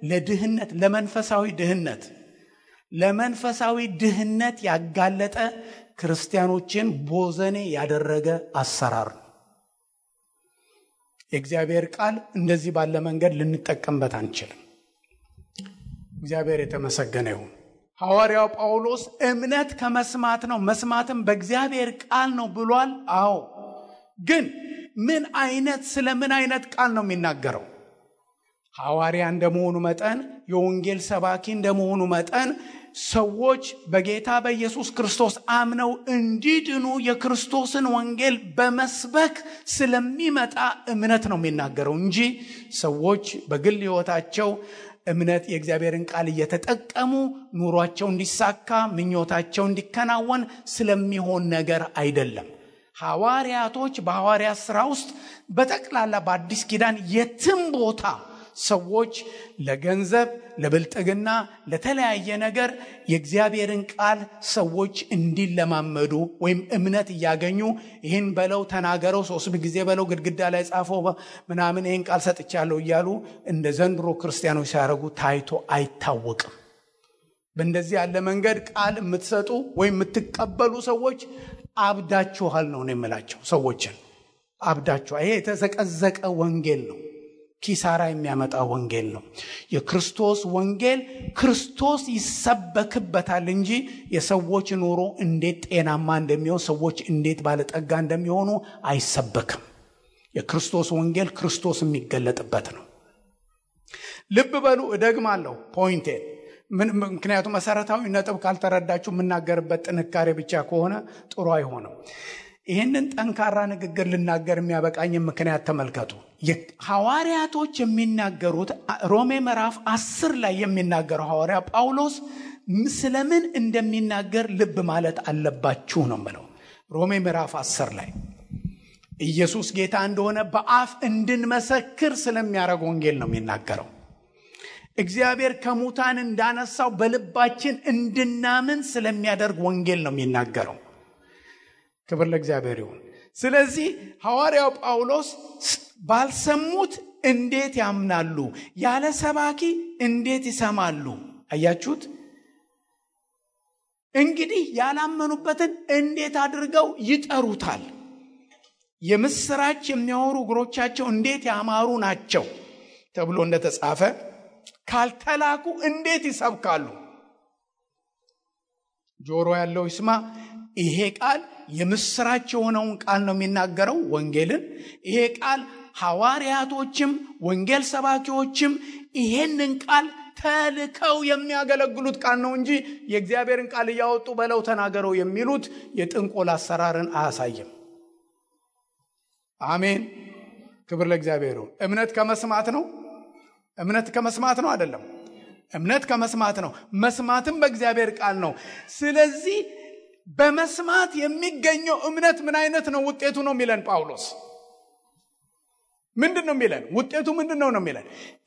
ለድህነት፣ ለመንፈሳዊ ድህነት ያጋለጠ ክርስቲያኖችን ቦዘኔ ያደረገ አሰራር ነው። የእግዚአብሔር ቃል እንደዚህ ባለ መንገድ ልንጠቀምበት አንችልም። እግዚአብሔር የተመሰገነ ይሁን። ሐዋርያው ጳውሎስ እምነት ከመስማት ነው፣ መስማትም በእግዚአብሔር ቃል ነው ብሏል። አዎ፣ ግን ስለ ምን አይነት ቃል ነው የሚናገረው? ሐዋርያ እንደመሆኑ መጠን፣ የወንጌል ሰባኪ እንደመሆኑ መጠን ሰዎች በጌታ በኢየሱስ ክርስቶስ አምነው እንዲድኑ የክርስቶስን ወንጌል በመስበክ ስለሚመጣ እምነት ነው የሚናገረው እንጂ ሰዎች በግል ሕይወታቸው እምነት የእግዚአብሔርን ቃል እየተጠቀሙ ኑሯቸው እንዲሳካ፣ ምኞታቸው እንዲከናወን ስለሚሆን ነገር አይደለም። ሐዋርያቶች በሐዋርያት ሥራ ውስጥ በጠቅላላ በአዲስ ኪዳን የትም ቦታ ሰዎች ለገንዘብ፣ ለብልጥግና፣ ለተለያየ ነገር የእግዚአብሔርን ቃል ሰዎች እንዲለማመዱ ወይም እምነት እያገኙ ይህን በለው ተናገረው 3 ጊዜ በለው ግድግዳ ላይ ጻፈው ምናምን ይህን ቃል ሰጥቻለሁ እያሉ እንደ ዘንድሮ ክርስቲያኖች ሲያደርጉ ታይቶ አይታወቅም። በእንደዚህ ያለ መንገድ ቃል የምትሰጡ ወይም የምትቀበሉ ሰዎች አብዳችኋል ነው የምላቸው። ሰዎችን አብዳችኋል። ይሄ የተዘቀዘቀ ወንጌል ነው። ኪሳራ የሚያመጣ ወንጌል ነው። የክርስቶስ ወንጌል ክርስቶስ ይሰበክበታል እንጂ የሰዎች ኑሮ እንዴት ጤናማ እንደሚሆን፣ ሰዎች እንዴት ባለጠጋ እንደሚሆኑ አይሰበክም። የክርስቶስ ወንጌል ክርስቶስ የሚገለጥበት ነው። ልብ በሉ፣ እደግማለሁ ፖይንቴን። ምክንያቱም መሰረታዊ ነጥብ ካልተረዳችሁ የምናገርበት ጥንካሬ ብቻ ከሆነ ጥሩ አይሆንም። ይህንን ጠንካራ ንግግር ልናገር የሚያበቃኝ ምክንያት ተመልከቱ። ሐዋርያቶች የሚናገሩት ሮሜ ምዕራፍ 10 ላይ የሚናገረው ሐዋርያ ጳውሎስ ስለምን እንደሚናገር ልብ ማለት አለባችሁ ነው የምለው። ሮሜ ምዕራፍ 10 ላይ ኢየሱስ ጌታ እንደሆነ በአፍ እንድንመሰክር ስለሚያደርግ ወንጌል ነው የሚናገረው። እግዚአብሔር ከሙታን እንዳነሳው በልባችን እንድናምን ስለሚያደርግ ወንጌል ነው የሚናገረው። ክብር ለእግዚአብሔር ይሁን። ስለዚህ ሐዋርያው ጳውሎስ ባልሰሙት እንዴት ያምናሉ? ያለ ሰባኪ እንዴት ይሰማሉ? አያችሁት? እንግዲህ ያላመኑበትን እንዴት አድርገው ይጠሩታል? የምስራች የሚያወሩ እግሮቻቸው እንዴት ያማሩ ናቸው ተብሎ እንደተጻፈ ካልተላኩ እንዴት ይሰብካሉ? ጆሮ ያለው ይስማ። ይሄ ቃል የምስራች የሆነውን ቃል ነው የሚናገረው፣ ወንጌልን። ይሄ ቃል ሐዋርያቶችም ወንጌል ሰባኪዎችም ይሄንን ቃል ተልከው የሚያገለግሉት ቃል ነው እንጂ የእግዚአብሔርን ቃል እያወጡ በለው ተናገረው የሚሉት የጥንቆላ አሰራርን አያሳይም። አሜን። ክብር ለእግዚአብሔር ይሁን። እምነት ከመስማት ነው። እምነት ከመስማት ነው አይደለም? እምነት ከመስማት ነው፣ መስማትም በእግዚአብሔር ቃል ነው። ስለዚህ በመስማት የሚገኘው እምነት ምን አይነት ነው? ውጤቱ ነው የሚለን ጳውሎስ። ምንድን ነው የሚለን? ውጤቱ ምንድን ነው የሚለን?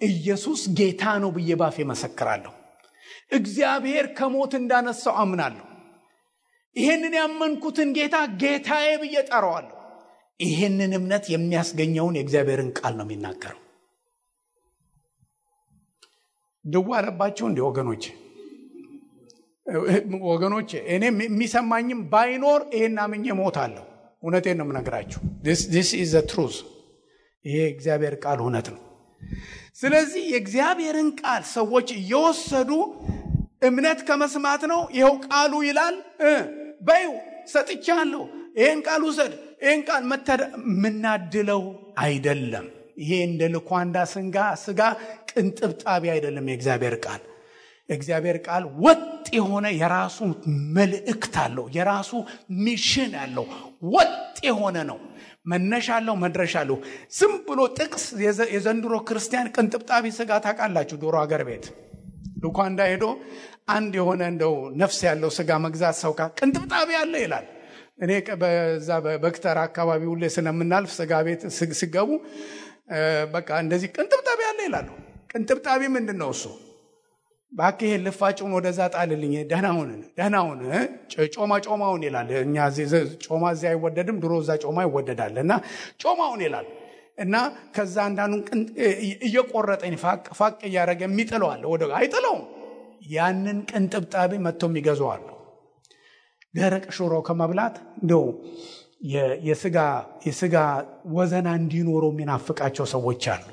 ኢየሱስ ጌታ ነው ብዬ ባፌ መሰክራለሁ። እግዚአብሔር ከሞት እንዳነሳው አምናለሁ። ይሄንን ያመንኩትን ጌታ ጌታዬ ብዬ ጠራዋለሁ። ይሄንን እምነት የሚያስገኘውን የእግዚአብሔርን ቃል ነው የሚናገረው። ደዋለባችሁ እንዴ ወገኖቼ? እኔ የሚሰማኝም ባይኖር ይሄን አምኜ ሞታለሁ። እውነቴን ነው የምነግራችሁ። this is the truth። ይሄ እግዚአብሔር ቃል እውነት ነው። ስለዚህ የእግዚአብሔርን ቃል ሰዎች እየወሰዱ እምነት ከመስማት ነው፣ ይሄው ቃሉ ይላል በዩ ሰጥቻለሁ፣ ይሄን ቃል ውሰድ፣ ይሄን ቃል ምናድለው አይደለም። ይሄ እንደ ልኳንዳ ስጋ ቅንጥብጣቢ አይደለም። የእግዚአብሔር ቃል ወጥ የሆነ የራሱ መልእክት አለው፣ የራሱ ሚሽን አለው፣ ወጥ የሆነ ነው። መነሻ አለው፣ መድረሻ አለው። ዝም ብሎ ጥቅስ የዘንድሮ ክርስቲያን ቅንጥብጣቢ ስጋ ታውቃላችሁ። ዶሮ ሀገር ቤት ልኳንዳ ሄዶ አንድ የሆነ እንደው ነፍስ ያለው ስጋ መግዛት ሰው ቅንጥብጣቢ አለ ይላል። እኔ በዛ በበክተር አካባቢ ሁሌ ስለምናልፍ ስጋ ቤት ሲገቡ በቃ እንደዚህ ቅንጥብጣቢ አለ ይላሉ። ቅንጥብጣቢ ምንድነው እሱ? ባክህ ልፋጭውን ወደዛ ጣልልኝ፣ ደህናውን ጮማውን ይላል። እኛ ጮማ እዚያ አይወደድም፣ ድሮ እዛ ጮማ ይወደዳልና ጮማውን ይላል። እና ከዛ አንዳንዱን እየቆረጠኝ ፋቅ እያደረገ የሚጥለዋል፣ ወደ አይጥለውም። ያንን ቅንጥብጣቢ መጥቶ የሚገዛዋል። ደረቅ ሽሮ ከመብላት እንደው የስጋ ወዘና እንዲኖረው የሚናፍቃቸው ሰዎች አሉ።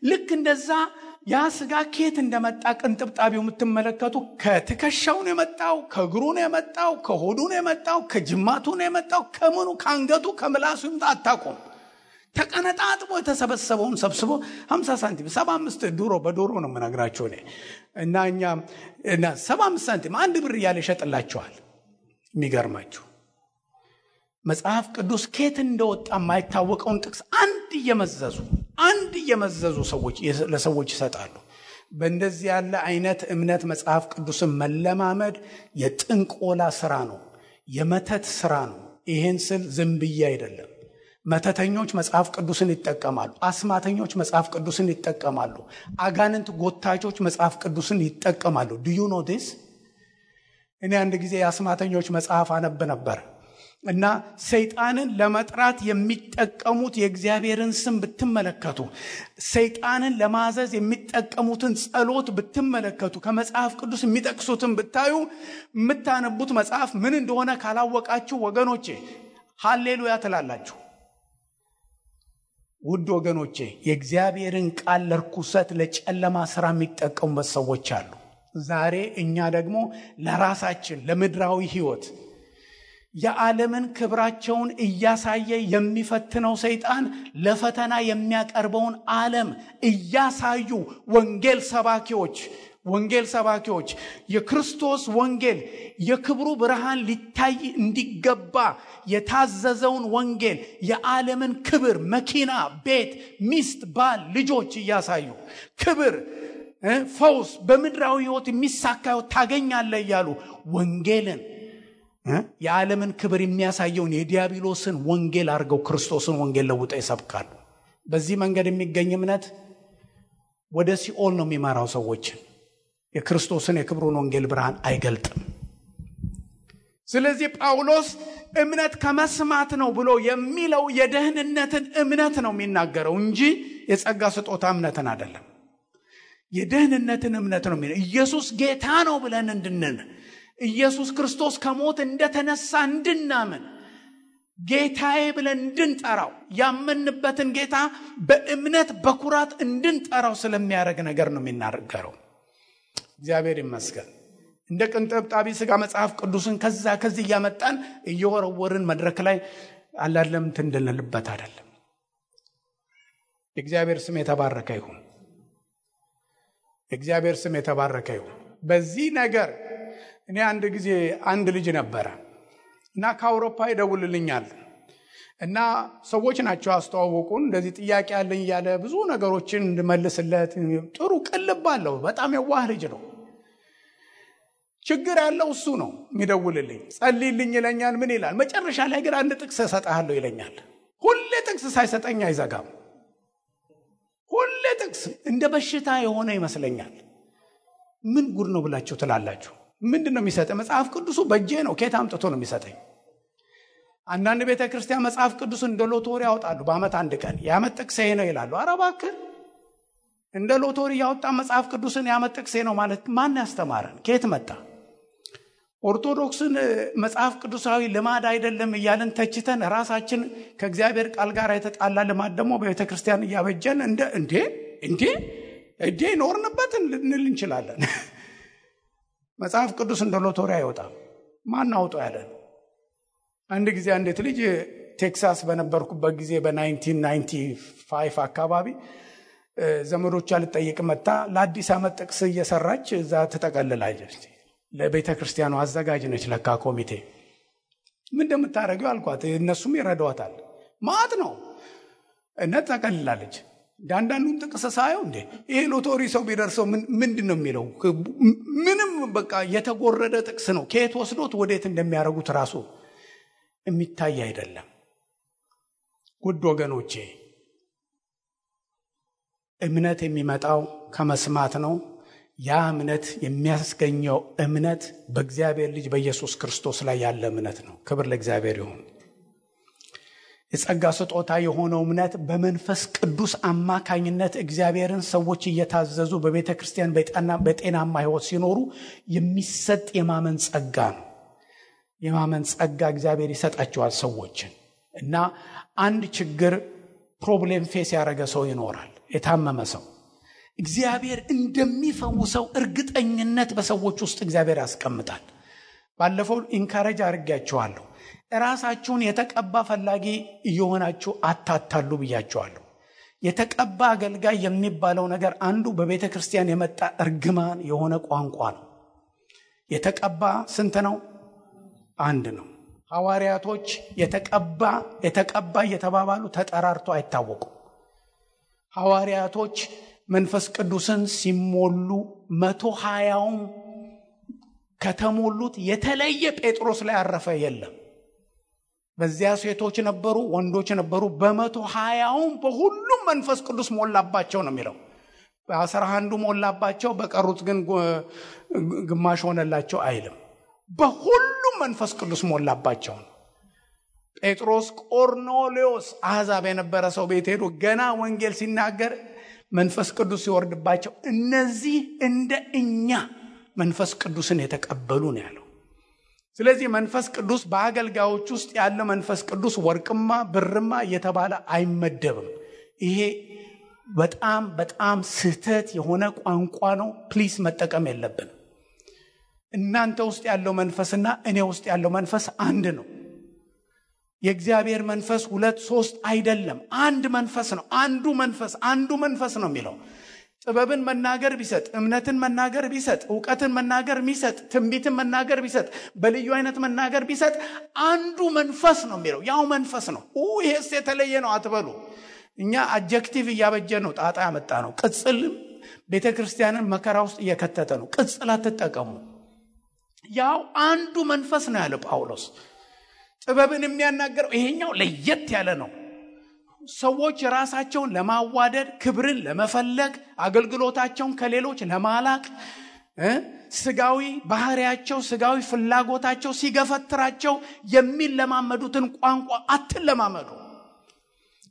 ልክ እንደዛ ያ ስጋ ኬት እንደመጣ ቅንጥብጣቢው የምትመለከቱ ከትከሻው ነው የመጣው፣ ከእግሩ ነው የመጣው፣ ከሆዱ ነው የመጣው፣ ከጅማቱ ነው የመጣው፣ ከምኑ ከአንገቱ ከምላሱ ይምጣ አታውቁም። ተቀነጣጥቦ የተሰበሰበውን ሰብስቦ 50 ሳንቲም 75 በዶሮ ነው የምነግራቸው እኔ እና እኛ 75 ሳንቲም 1 ብር እያለ ይሸጥላቸዋል። የሚገርማችሁ መጽሐፍ ቅዱስ ኬት እንደወጣ የማይታወቀውን ጥቅስ አንድ እየመዘዙ ለሰዎች ይሰጣሉ። በእንደዚህ ያለ አይነት እምነት መጽሐፍ ቅዱስን መለማመድ የጥንቆላ ስራ ነው፣ የመተት ስራ ነው። ይሄን ስል ዝም ብዬ አይደለም። መተተኞች መጽሐፍ ቅዱስን ይጠቀማሉ፣ አስማተኞች መጽሐፍ ቅዱስን ይጠቀማሉ፣ አጋንንት ጎታቾች መጽሐፍ ቅዱስን ይጠቀማሉ። do you know this? እኔ አንድ ጊዜ የአስማተኞች መጽሐፍ አነብ ነበር እና ሰይጣንን ለመጥራት የሚጠቀሙት የእግዚአብሔርን ስም ብትመለከቱ፣ ሰይጣንን ለማዘዝ የሚጠቀሙትን ጸሎት ብትመለከቱ፣ ከመጽሐፍ ቅዱስ የሚጠቅሱትን ብታዩ፣ የምታነቡት መጽሐፍ ምን እንደሆነ ካላወቃችሁ ወገኖቼ ሃሌሉያ ትላላችሁ። ውድ ወገኖቼ የእግዚአብሔርን ቃል ለርኩሰት ለጨለማ ስራ የሚጠቀሙበት ሰዎች አሉ። ዛሬ እኛ ደግሞ ለራሳችን ለምድራዊ ህይወት የዓለምን ክብራቸውን እያሳየ የሚፈትነው ሰይጣን ለፈተና የሚያቀርበውን ዓለም እያሳዩ ወንጌል ሰባኪዎች የክርስቶስ ወንጌል የክብሩ ብርሃን ሊታይ እንዲገባ የታዘዘውን ወንጌል የዓለምን ክብር፣ መኪና፣ ቤት፣ ሚስት፣ ባል፣ ልጆች እያሳዩ ክብር፣ ፈውስ በምድራዊ ህይወት የሚሳካው ታገኛለህ እያሉ ወንጌልን የዓለምን ክብር የሚያሳየውን የዲያብሎስን ወንጌል አድርገው ክርስቶስን ወንጌል ለውጠው ይሰብካሉ። በዚህ መንገድ የሚገኝ እምነት ወደ ሲኦል ነው የሚመራው ሰዎችን። የክርስቶስን የክብሩን ወንጌል ብርሃን አይገልጥም። ስለዚህ ጳውሎስ እምነት ከመስማት ነው ብሎ የሚለው የደህንነትን እምነት ነው የሚናገረው እንጂ የጸጋ ስጦታ እምነትን አይደለም። የደህንነትን እምነት ነው የሚለው። ኢየሱስ ጌታ ነው ብለን እንድንን፣ ኢየሱስ ክርስቶስ ከሞት እንደተነሳ እንድናምን፣ ጌታዬ ብለን እንድንጠራው፣ ያመንበትን ጌታ በእምነት በኩራት እንድንጠራው ስለሚያደርግ ነገር ነው የሚናገረው። እግዚአብሔር ይመስገን። እንደ ቅንጥብጣቢ ስጋ መጽሐፍ ቅዱስን ከዚህ እያመጣን እየወረወርን መድረክ ላይ አላለም እንድንልበት አይደለም። እግዚአብሔር ስም የተባረከ ይሁን። እግዚአብሔር ስም የተባረከ ይሁን። በዚህ ነገር እኔ አንድ ጊዜ አንድ ልጅ ነበረ እና ከአውሮፓ ይደውልልኛል እና ሰዎች ናቸው አስተዋወቁን። እንደዚህ ጥያቄ ያለኝ እያለ ብዙ ነገሮችን እንድመልስለት ጥሩ ቅልብ አለው። በጣም የዋህ ልጅ ነው። ችግር ያለው እሱ ነው የሚደውልልኝ። ጸልይልኝ ይለኛል። ምን ይላል? መጨረሻ ላይ ግን አንድ ጥቅስ እሰጥሃለሁ ይለኛል። ሁሌ ጥቅስ ሳይሰጠኝ አይዘጋም። ሁሌ ጥቅስ እንደ በሽታ የሆነ ይመስለኛል። ምን ጉድ ነው ብላችሁ ትላላችሁ? ምንድን ነው የሚሰጠኝ? መጽሐፍ ቅዱሱ በእጄ ነው። ከየት አምጥቶ ነው የሚሰጠኝ? አንዳንድ ቤተ ክርስቲያን መጽሐፍ ቅዱስ እንደ ሎቶሪ ያወጣሉ። በዓመት አንድ ቀን የዓመት ጥቅሴ ነው ይላሉ። ኧረ እባክህ፣ እንደ ሎቶሪ ያወጣ መጽሐፍ ቅዱስን የዓመት ጥቅሴ ነው ማለት ማን ያስተማረን? ከየት መጣ? ኦርቶዶክስን መጽሐፍ ቅዱሳዊ ልማድ አይደለም እያልን ተችተን ራሳችን ከእግዚአብሔር ቃል ጋር የተጣላ ልማድ ደግሞ በቤተ ክርስቲያን እያበጀን እንዴ ኖርንበት ልንል እንችላለን። መጽሐፍ ቅዱስ እንደ ሎቶሪ አይወጣም። ማን አውጣው ያለን? አንድ ጊዜ አንዲት ልጅ ቴክሳስ በነበርኩበት ጊዜ በ1995 አካባቢ ዘመዶቿ ልጠይቅ መጣ። ለአዲስ ዓመት ጥቅስ እየሰራች እዛ ትጠቀልላለች። ለቤተ ክርስቲያኑ አዘጋጅ ነች ለካ ኮሚቴ። ምን እንደምታደርገው አልኳት። እነሱም ይረዷታል። ማት ነው እና ትጠቀልላለች። ዳንዳንዱን ጥቅስ ሳየው እንዴ ይሄ ሎቶሪ ሰው ቢደርሰው ምንድን ነው የሚለው? ምንም በቃ የተጎረደ ጥቅስ ነው። ከየት ወስዶት ወዴት እንደሚያደርጉት ራሱ የሚታይ አይደለም። ውድ ወገኖቼ እምነት የሚመጣው ከመስማት ነው። ያ እምነት የሚያስገኘው እምነት በእግዚአብሔር ልጅ በኢየሱስ ክርስቶስ ላይ ያለ እምነት ነው። ክብር ለእግዚአብሔር ይሁን። የጸጋ ስጦታ የሆነው እምነት በመንፈስ ቅዱስ አማካኝነት እግዚአብሔርን ሰዎች እየታዘዙ በቤተ ክርስቲያን በጤናማ ሕይወት ሲኖሩ የሚሰጥ የማመን ጸጋ ነው። የማመን ጸጋ እግዚአብሔር ይሰጣቸዋል ሰዎችን። እና አንድ ችግር ፕሮብሌም ፌስ ያደረገ ሰው ይኖራል። የታመመ ሰው እግዚአብሔር እንደሚፈውሰው እርግጠኝነት በሰዎች ውስጥ እግዚአብሔር ያስቀምጣል። ባለፈው ኢንካሬጅ አድርጌያችኋለሁ። ራሳችሁን የተቀባ ፈላጊ እየሆናችሁ አታታሉ ብያችኋለሁ። የተቀባ አገልጋይ የሚባለው ነገር አንዱ በቤተ ክርስቲያን የመጣ እርግማን የሆነ ቋንቋ ነው። የተቀባ ስንት ነው? አንድ ነው። ሐዋርያቶች የተቀባ እየተባባሉ ተጠራርቶ አይታወቁም። ሐዋርያቶች መንፈስ ቅዱስን ሲሞሉ 120ም ከተሞሉት የተለየ ጴጥሮስ ላይ ያረፈ የለም። በዚያ ሴቶች ነበሩ፣ ወንዶች ነበሩ። በ120ም በሁሉም መንፈስ ቅዱስ ሞላባቸው ነው የሚለው። በ11 ሞላባቸው፣ በቀሩት ግን ግማሽ ሆነላቸው አይልም። በሁሉም መንፈስ ቅዱስ ሞላባቸው ነው። ጴጥሮስ ቆርኔሌዎስ አሕዛብ የነበረ ሰው ቤት ሄዶ ገና ወንጌል ሲናገር መንፈስ ቅዱስ ሲወርድባቸው እነዚህ እንደ እኛ መንፈስ ቅዱስን የተቀበሉ ነው ያለው። ስለዚህ መንፈስ ቅዱስ በአገልጋዮች ውስጥ ያለ መንፈስ ቅዱስ ወርቅማ ብርማ እየተባለ አይመደብም። ይሄ በጣም በጣም ስህተት የሆነ ቋንቋ ነው። ፕሊስ መጠቀም የለብንም። እናንተ ውስጥ ያለው መንፈስና እኔ ውስጥ ያለው መንፈስ አንድ ነው። የእግዚአብሔር መንፈስ 2 3 አይደለም፣ አንድ መንፈስ ነው። አንዱ መንፈስ ነው የሚለው። ጥበብን መናገር ቢሰጥ፣ እምነትን መናገር ቢሰጥ፣ ዕውቀትን መናገር ቢሰጥ፣ ትንቢትን መናገር ቢሰጥ፣ በልዩ አይነት መናገር ቢሰጥ አንዱ መንፈስ ነው የሚለው። ያው መንፈስ ነው። ይሄስ የተለየ ነው አትበሉ። እኛ አጀክቲቭ እያበጀ ነው ጣጣ ያመጣ ነው። ቅጽል ቤተክርስቲያንን መከራ ውስጥ እየከተተ ነው። ቅጽል አትጠቀሙ። ያው አንዱ መንፈስ ነው ያለ ጳውሎስ። ጥበብን የሚያናገረው ይሄኛው ለየት ያለ ነው። ሰዎች ራሳቸውን ለማዋደድ፣ ክብርን ለመፈለግ፣ አገልግሎታቸውን ከሌሎች ለማላቅ፣ ስጋዊ ባህሪያቸው፣ ስጋዊ ፍላጎታቸው ሲገፈትራቸው የሚለማመዱትን ቋንቋ አትለማመዱ።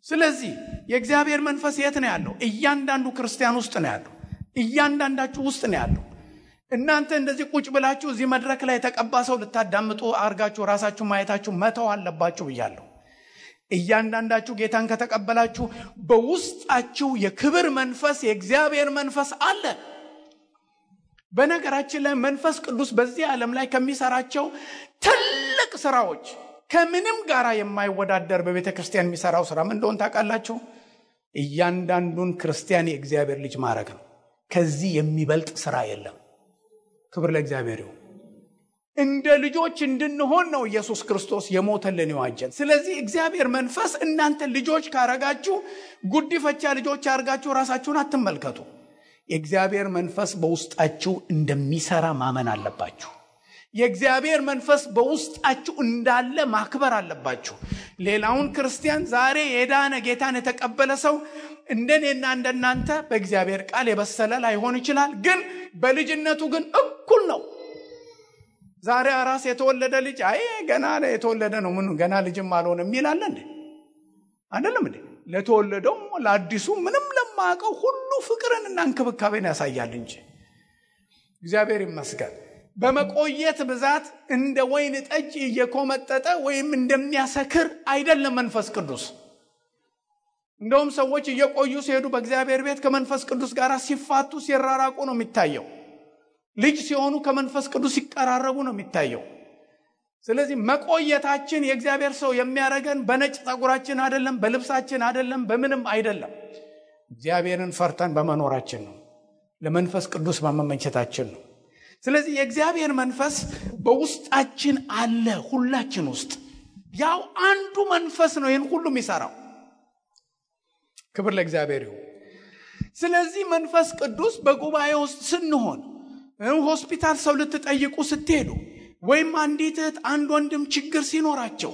ስለዚህ የእግዚአብሔር መንፈስ የት ነው ያለው? እያንዳንዱ ክርስቲያን ውስጥ ነው ያለው። እያንዳንዳችሁ ውስጥ ነው ያለው። እናንተ እንደዚህ ቁጭ ብላችሁ እዚህ መድረክ ላይ የተቀባ ሰው ልታዳምጡ አርጋችሁ ራሳችሁ ማየታችሁ መተው አለባችሁ ብያለሁ። እያንዳንዳችሁ ጌታን ከተቀበላችሁ በውስጣችሁ የክብር መንፈስ፣ የእግዚአብሔር መንፈስ አለ። በነገራችን ላይ መንፈስ ቅዱስ በዚህ ዓለም ላይ ከሚሰራቸው ትልቅ ስራዎች ከምንም ጋር የማይወዳደር በቤተ ክርስቲያን የሚሰራው ስራ ምን እንደሆነ ታውቃላችሁ? እያንዳንዱን ክርስቲያን የእግዚአብሔር ልጅ ማድረግ ነው። ከዚህ የሚበልጥ ስራ የለም። ክብር ለእግዚአብሔር ይሁን። እንደ ልጆች እንድንሆን ነው ኢየሱስ ክርስቶስ የሞተልን የዋጀን። ስለዚህ እግዚአብሔር መንፈስ እናንተ ልጆች ካረጋችሁ ጉዲፈቻ ልጆች አርጋችሁ ራሳችሁን አትመልከቱ። የእግዚአብሔር መንፈስ በውስጣችሁ እንደሚሰራ ማመን አለባችሁ። የእግዚአብሔር መንፈስ በውስጣችሁ እንዳለ ማክበር አለባችሁ። ሌላውን ክርስቲያን ዛሬ የዳነ ጌታን የተቀበለ ሰው እንደኔና እንደናንተ በእግዚአብሔር ቃል የበሰለ ላይሆን ይችላል፣ ግን በልጅነቱ ግን እኩል ነው። ዛሬ አራስ የተወለደ ልጅ አይ ገና የተወለደ ነው ምን ገና ልጅም አልሆነም ይላል እንዴ? አይደለም እንዴ? ለተወለደው ለአዲሱ ምንም ለማያውቀው ሁሉ ፍቅርንና እንክብካቤን ያሳያል እንጂ። እግዚአብሔር ይመስገን። በመቆየት ብዛት እንደ ወይን ጠጅ እየኮመጠጠ ወይም እንደሚያሰክር አይደለም መንፈስ ቅዱስ። እንደውም ሰዎች እየቆዩ ሲሄዱ በእግዚአብሔር ቤት ከመንፈስ ቅዱስ ጋር ሲፋቱ ሲራራቁ ነው የሚታየው። ልጅ ሲሆኑ ከመንፈስ ቅዱስ ሲቀራረቡ ነው የሚታየው። ስለዚህ መቆየታችን የእግዚአብሔር ሰው የሚያረገን በነጭ ጸጉራችን አይደለም፣ በልብሳችን አይደለም፣ በምንም አይደለም። እግዚአብሔርን ፈርተን በመኖራችን ነው፣ ለመንፈስ ቅዱስ በመመቸታችን ነው። ስለዚህ የእግዚአብሔር መንፈስ በውስጣችን አለ፣ ሁላችን ውስጥ ያው አንዱ መንፈስ ነው ይህን ሁሉ የሚሰራው። ክብር ለእግዚአብሔር ይሁን። ስለዚህ መንፈስ ቅዱስ በጉባኤ ውስጥ ስንሆን፣ ሆስፒታል ሰው ልትጠይቁ ስትሄዱ፣ ወይም አንዲት እህት አንድ ወንድም ችግር ሲኖራቸው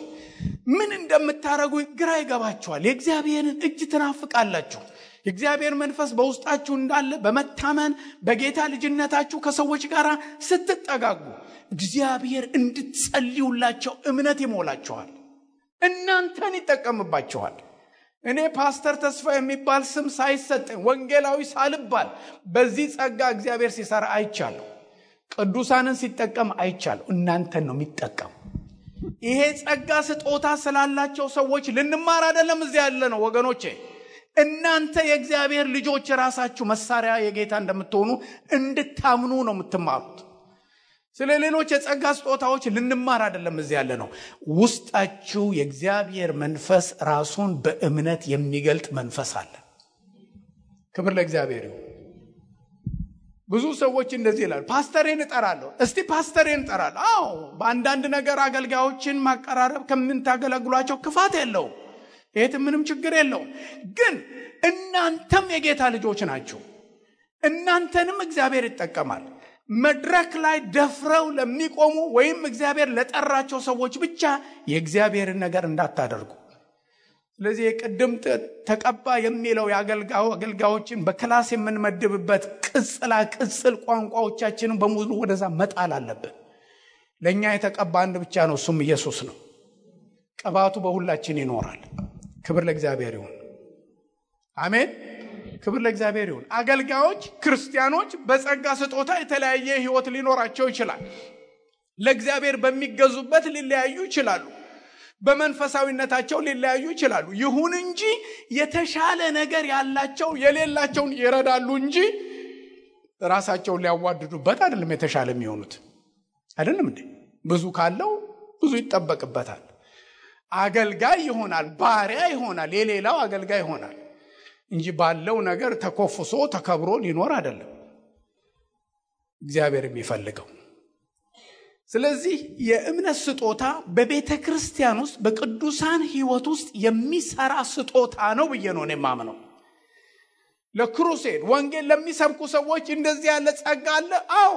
ምን እንደምታረጉ ግራ ይገባችኋል። የእግዚአብሔርን እጅ ትናፍቃላችሁ። የእግዚአብሔር መንፈስ በውስጣችሁ እንዳለ በመታመን በጌታ ልጅነታችሁ ከሰዎች ጋር ስትጠጋጉ እግዚአብሔር እንድትጸልዩላቸው እምነት ይሞላችኋል፣ እናንተን ይጠቀምባችኋል። እኔ ፓስተር ተስፋ የሚባል ስም ሳይሰጠኝ ወንጌላዊ ሳልባል በዚህ ጸጋ እግዚአብሔር ሲሰራ አይቻለሁ። ቅዱሳንን ሲጠቀም አይቻለሁ። እናንተን ነው የሚጠቀም። ይሄ ጸጋ ስጦታ ስላላቸው ሰዎች ልንማር አይደለም እዚህ ያለ ነው ወገኖቼ። እናንተ የእግዚአብሔር ልጆች ራሳችሁ መሳሪያ የጌታ እንደምትሆኑ እንድታምኑ ነው የምትማሩት። ስለ ሌሎች የጸጋ ስጦታዎች ልንማር አይደለም እዚህ ያለ ነው። ውስጣችሁ የእግዚአብሔር መንፈስ ራሱን በእምነት የሚገልጥ መንፈስ አለ። ክብር ለእግዚአብሔር ይሁን። ብዙ ሰዎች እንደዚህ ይላሉ፣ ፓስተሬን እጠራለሁ። እስቲ ፓስተሬን እጠራለሁ። አዎ በአንዳንድ ነገር አገልጋዮችን ማቀራረብ ከምንታገለግሏቸው ክፋት የለውም፣ ይሄት ምንም ችግር የለውም። ግን እናንተም የጌታ ልጆች ናችሁ። እናንተንም እግዚአብሔር ይጠቀማል። መድረክ ላይ ደፍረው ለሚቆሙ ወይም እግዚአብሔር ለጠራቸው ሰዎች ብቻ የእግዚአብሔርን ነገር እንዳታደርጉ። ስለዚህ የቅድም ተቀባ የሚለው አገልጋዮችን በክላስ የምንመድብበት ቅጽል ቋንቋዎቻችንን በሙሉ ወደዛ መጣል አለብን። ለኛ የተቀባ አንድ ብቻ ነው፣ እሱም ኢየሱስ ነው። ቅባቱ በሁላችን ይኖራል። ክብር ለእግዚአብሔር ይሁን። አሜን። ክብር ለእግዚአብሔር ይሁን። አገልጋዮች ክርስቲያኖች በጸጋ ስጦታ የተለያየ ህይወት ሊኖራቸው ይችላል። ለእግዚአብሔር በሚገዙበት ሊለያዩ ይችላሉ። በመንፈሳዊነታቸው ሊለያዩ ይችላሉ። ይሁን እንጂ የተሻለ ነገር ያላቸው የሌላቸውን ይረዳሉ እንጂ ራሳቸውን ሊያዋድዱበት አይደለም የተሻለ የሚሆኑት። አይደለም እንዴ? ብዙ ካለው ብዙ ይጠበቅበታል። አገልጋይ ይሆናል፣ ባሪያ ይሆናል፣ የሌላው አገልጋይ ይሆናል እንጂ ባለው ነገር ተኮፍሶ ተከብሮ ሊኖር አይደለም እግዚአብሔር የሚፈልገው። ስለዚህ የእምነት ስጦታ በቤተ ክርስቲያን ውስጥ በቅዱሳን ህይወት ውስጥ የሚሰራ ስጦታ ነው ብዬ ነው የማምነው። ለክሩሴድ ወንጌል ለሚሰብኩ ሰዎች እንደዚህ ያለ ጸጋ አለ። አዎ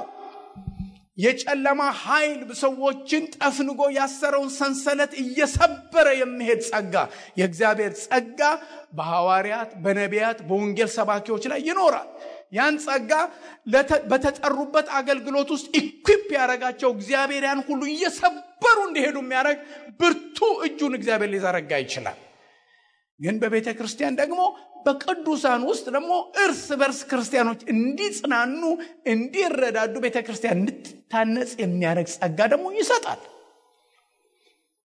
የጨለማ ኃይል ሰዎችን ጠፍንጎ ያሰረውን ሰንሰለት እየሰበረ የሚሄድ ጸጋ፣ የእግዚአብሔር ጸጋ በሐዋርያት በነቢያት በወንጌል ሰባኪዎች ላይ ይኖራል። ያን ጸጋ በተጠሩበት አገልግሎት ውስጥ ኢኩዊፕ ያደረጋቸው እግዚአብሔር ያን ሁሉ እየሰበሩ እንዲሄዱ የሚያደርግ ብርቱ እጁን እግዚአብሔር ሊዘረጋ ይችላል። ግን በቤተ ክርስቲያን ደግሞ በቅዱሳን ውስጥ ደግሞ እርስ በርስ ክርስቲያኖች እንዲጽናኑ እንዲረዳዱ ቤተ ክርስቲያን እንድትታነጽ የሚያደርግ ጸጋ ደግሞ ይሰጣል።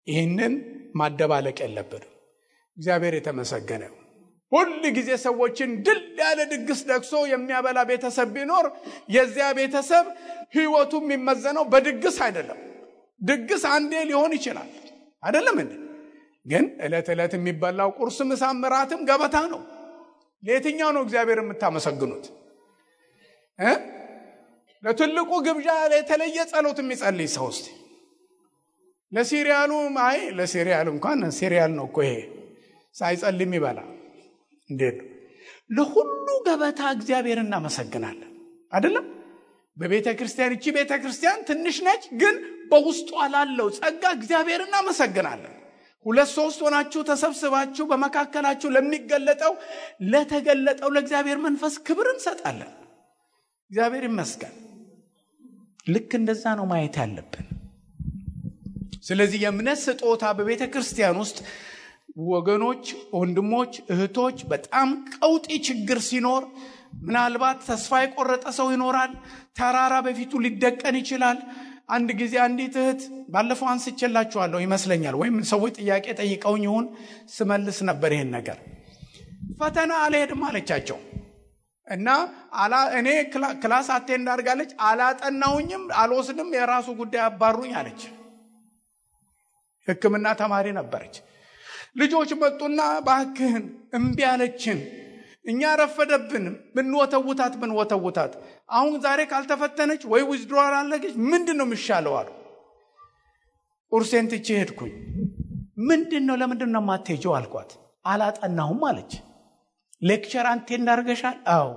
ይህንን ማደባለቅ የለብንም። እግዚአብሔር የተመሰገነ ይሁን። ሁል ጊዜ ሰዎችን ድል ያለ ድግስ ደግሶ የሚያበላ ቤተሰብ ቢኖር የዚያ ቤተሰብ ህይወቱ የሚመዘነው በድግስ አይደለም። ድግስ አንዴ ሊሆን ይችላል አይደለም እንዴ? ግን ዕለት ዕለት የሚበላው ቁርስ ምሳም እራትም ገበታ ነው። ለየትኛው ነው እግዚአብሔር የምታመሰግኑት? ለትልቁ ግብዣ የተለየ ጸሎት የሚጸልይ ሰው እስቲ ለሲሪያሉ ለሲሪያሉ እንኳን ሲሪያል ነው እኮ ይሄ ሳይጸልይ የሚበላ እንዴት ለሁሉ ገበታ እግዚአብሔር እናመሰግናለን አይደለም? በቤተ ክርስቲያን እቺ ቤተ ክርስቲያን ትንሽ ነች፣ ግን በውስጧ ላለው ጸጋ እግዚአብሔር እናመሰግናለን። 2-3 ሆናችሁ ተሰብስባችሁ በመካከላችሁ ለሚገለጠው ለተገለጠው ለእግዚአብሔር መንፈስ ክብር እንሰጣለን። እግዚአብሔር ይመስገን። ልክ እንደዛ ነው ማየት ያለብን። ስለዚህ የእምነት ስጦታ በቤተ ክርስቲያን ውስጥ ወገኖች፣ ወንድሞች፣ እህቶች በጣም ቀውጢ ችግር ሲኖር ምናልባት ተስፋ የቆረጠ ሰው ይኖራል። ተራራ በፊቱ ሊደቀን ይችላል። አንድ ጊዜ አንዲት እህት ባለፈው አንስቼላችኋለሁ ይመስለኛል፣ ወይም ሰዎች ጥያቄ ጠይቀውኝ ይሁን ስመልስ ነበር ይሄን ነገር። ፈተና አልሄድም አለቻቸው እና እኔ ክላስ አቴንድ አድርጋለች። አላጠናውኝም፣ አልወስድም፣ የራሱ ጉዳይ አባሩኝ አለች። ሕክምና ተማሪ ነበረች። ልጆች መጡና ባክህን እምቢ አለችን፣ እኛ ረፈደብን፣ ብንወተውታት አሁን ዛሬ ካልተፈተነች ወይ ዊዝድሮዋል አለች፣ ምንድነው የሚሻለው አሉ። ቁርሴን ትቼ ሄድኩኝ። ምንድነው ለምንድነው ማትሄጂው አልኳት። አላጠናሁም አለች። ሌክቸር አቴንድ አድርገሻል? አዎ።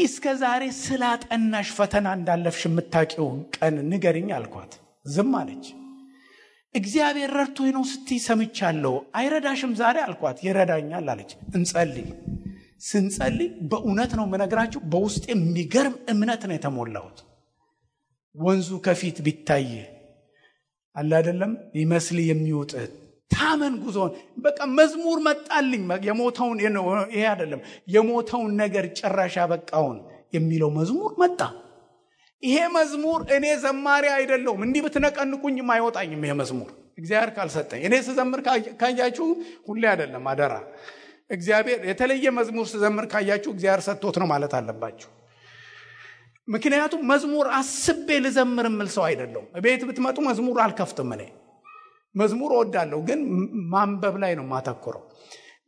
እስከ ዛሬ ስላጠናሽ ፈተና እንዳለፍሽ የምታውቂው ቀን ንገሪኝ አልኳት። ዝም አለች። እግዚአብሔር ረድቶኝ ነው ስትይ ሰምቻለሁ። አይረዳሽም ዛሬ አልኳት። ይረዳኛል አለች። እንጸልይ። ስንጸልይ በእውነት ነው የምነግራችሁ፣ በውስጤ የሚገርም እምነት ነው የተሞላሁት። ወንዙ ከፊት ቢታይ አለ አይደለም ይመስል የሚውጥ ታመን ጉዞን በቃ መዝሙር መጣልኝ። የሞተውን ይሄ አይደለም የሞተውን ነገር ጭራሽ ያበቃውን የሚለው መዝሙር መጣ። ይሄ መዝሙር እኔ ዘማሪ አይደለሁም፣ እንዲህ ብትነቀንቁኝም አይወጣኝም ይሄ መዝሙር እግዚአብሔር ካልሰጠኝ። እኔ ስዘምር ካያችሁ ሁሌ አይደለም አደራ፣ እግዚአብሔር የተለየ መዝሙር ስዘምር ካያችሁ እግዚአብሔር ሰጥቶት ነው ማለት አለባችሁ። ምክንያቱም መዝሙር አስቤ ልዘምር የምል ሰው አይደለሁም። ቤት ብትመጡ መዝሙር አልከፍትም። እኔ መዝሙር እወዳለሁ፣ ግን ማንበብ ላይ ነው ማተኮረው።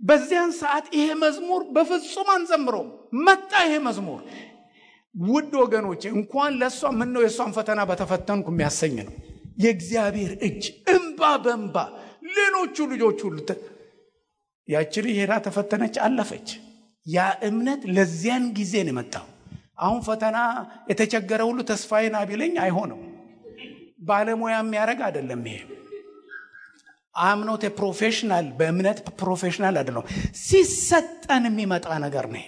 በዚያን ሰዓት ይሄ መዝሙር በፍጹም አንዘምረውም። መጣ ይሄ መዝሙር። ውድ ወገኖቼ እንኳን ለሷ ምን ነው የሷን ፈተና በተፈተንኩ የሚያሰኝ ነው። የእግዚአብሔር እጅ እንባ በእንባ ሌሎቹ ልጆች ሁሉ ያቺ ሄዳ ተፈተነች፣ አለፈች። ያ እምነት ለዚያን ጊዜ ነው የመጣው። አሁን ፈተና የተቸገረ ሁሉ ተስፋዬን አቢለኝ አይሆንም። ባለሙያ የሚያደርግ አይደለም ይሄ። አምኖት ፕሮፌሽናል በእምነት ፕሮፌሽናል አይደለም፣ ሲሰጠን የሚመጣ ነገር ነው።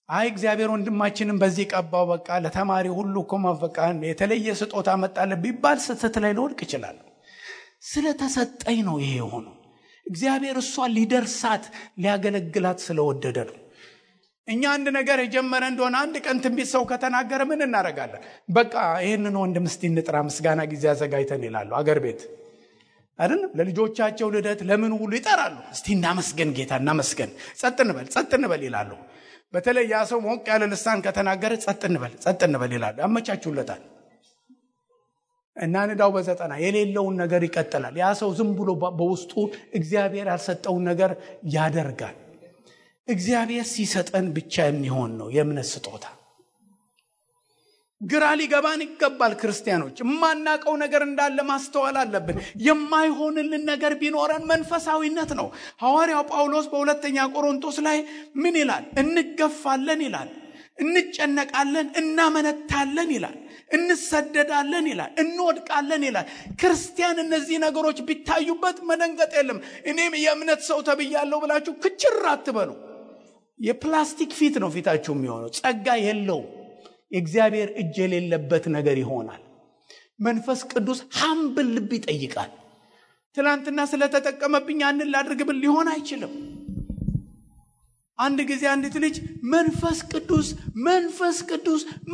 አይ እግዚአብሔር ወንድማችንን በዚህ ቀባው በቃ ለተማሪ ሁሉ በቃ የተለየ ስጦታ መጣለ ቢባል ስህተት ላይ ልወድቅ ይችላል። ስለተሰጠኝ ነው ይሄ ሆኖ። እግዚአብሔር እሷ ሊደርሳት ሊያገለግላት ስለወደደ ነው። እኛ አንድ ነገር የጀመረ እንደሆነ አንድ ቀን ትንቢት ሰው ከተናገረ ምን እናደርጋለን? በቃ ይሄንን ወንድም እስቲ እንጥራ ምስጋና ጊዜ አዘጋጅተን ይላሉ። አገር ቤት አይደለም ለልጆቻቸው ልደት ለምን ሁሉ ይጠራሉ። እስቲ እናመስገን ጌታ እናመስገን፣ ጸጥ እንበል ይላሉ። በተለይ ያ ሰው ሞቅ ያለ ልሳን ከተናገረ ጸጥ እንበል ይላሉ። ያመቻቹለታል። እና ንዳው በዘጠና የሌለውን ነገር ይቀጥላል። ያ ሰው ዝም ብሎ በውስጡ እግዚአብሔር ያልሰጠውን ነገር ያደርጋል። እግዚአብሔር ሲሰጠን ብቻ የሚሆን ነው የእምነት ስጦታ። ግራ ሊገባን ይገባል። ክርስቲያኖች የማናቀው ነገር እንዳለ ማስተዋል አለብን። የማይሆንልን ነገር ቢኖረን መንፈሳዊነት ነው። ሐዋርያው ጳውሎስ በሁለተኛ ቆሮንቶስ ላይ ምን ይላል? እንገፋለን ይላል፣ እንጨነቃለን፣ እናመነታለን ይላል፣ እንሰደዳለን ይላል፣ እንወድቃለን ይላል። ክርስቲያን እነዚህ ነገሮች ቢታዩበት መደንገጥ የለም። እኔም የእምነት ሰው ተብያለሁ ብላችሁ ክችር አትበሉ። የፕላስቲክ ፊት ነው ፊታችሁ የሚሆነው። ጸጋ የለውም። የእግዚአብሔር እጅ የሌለበት ነገር ይሆናል። መንፈስ ቅዱስ ሐምብል ልብ ይጠይቃል። ትላንትና ስለተጠቀመብኝ አንን ላድርግብል ሊሆን አይችልም። አንድ ጊዜ አንዲት ልጅ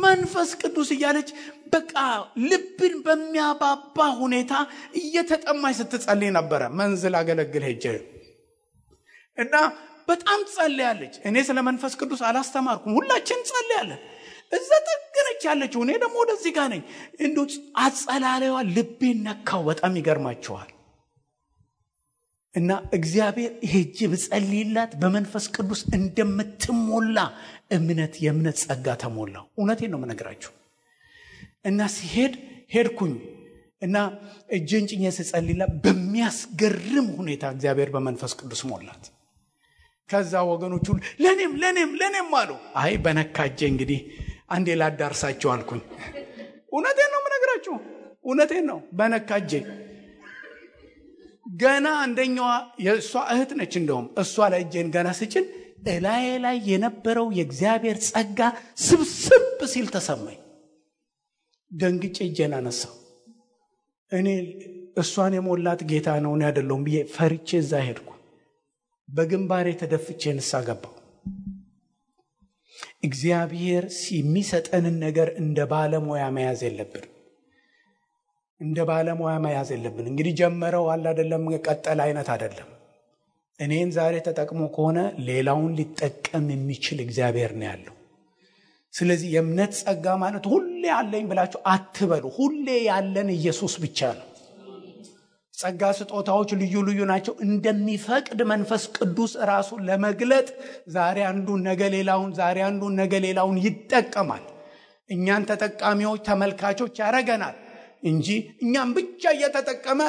መንፈስ ቅዱስ እያለች በቃ ልብን በሚያባባ ሁኔታ እየተጠማች ስትጸልይ ነበረ። መንዝል አገለግል ሄጄ እና በጣም ጸልያለች። እኔ ስለ መንፈስ ቅዱስ አላስተማርኩም። ሁላችን ጸልያለን። እዛ ተገረች ያለችው እኔ ደግሞ ወደዚህ ጋር ነኝ። እንዴት አጸላላይዋ ልቤን ነካው። በጣም ይገርማችኋል። እና እግዚአብሔር ሄጄ ብጸልይላት በመንፈስ ቅዱስ እንደምትሞላ የእምነት ጸጋ ተሞላው። እውነቴን ነው የምነግራችሁ። እና ሄድኩኝ እና እጄን ጭኜ ስጸልይላት በሚያስገርም ሁኔታ እግዚአብሔር በመንፈስ ቅዱስ ሞላት። ከዛ ወገኖቹ ለኔም አሉ። አይ በነካጄ እንግዲህ አንዴ ላዳርሳቸው አልኩኝ። እውነቴን ነው የምነግራችሁ፣ እውነቴን ነው። በነካጄ ገና አንደኛዋ የእሷ እህት ነች። እንደውም እሷ ላይ እጄን ገና ስጭን ላይ የነበረው የእግዚአብሔር ጸጋ ስብስብ ሲል ተሰማኝ። ደንግጬ እጄን አነሳው። እኔ እሷን የሞላት ጌታ ነው እኔ አይደለሁም ብዬ ፈርቼ እዛ ሄድኩ። በግንባሬ ተደፍቼ ንስሐ ገባሁ። እግዚአብሔር የሚሰጠንን ነገር እንደ ባለሙያ መያዝ የለብን። እንግዲህ ጀመረው አለ አይደለም፣ ቀጠል አይነት አይደለም። እኔን ዛሬ ተጠቅሞ ከሆነ ሌላውን ሊጠቀም የሚችል እግዚአብሔር ነው ያለው። ስለዚህ የእምነት ጸጋ ማለት ሁሌ አለኝ ብላችሁ አትበሉ። ሁሌ ያለን ኢየሱስ ብቻ ነው። ጸጋ ስጦታዎች ልዩ ናቸው። እንደሚፈቅድ መንፈስ ቅዱስ ራሱን ለመግለጥ ዛሬ አንዱን ነገ ሌላውን ይጠቀማል። እኛን ተጠቃሚዎች ተመልካቾች ያረገናል እንጂ እኛም ብቻ እየተጠቀመ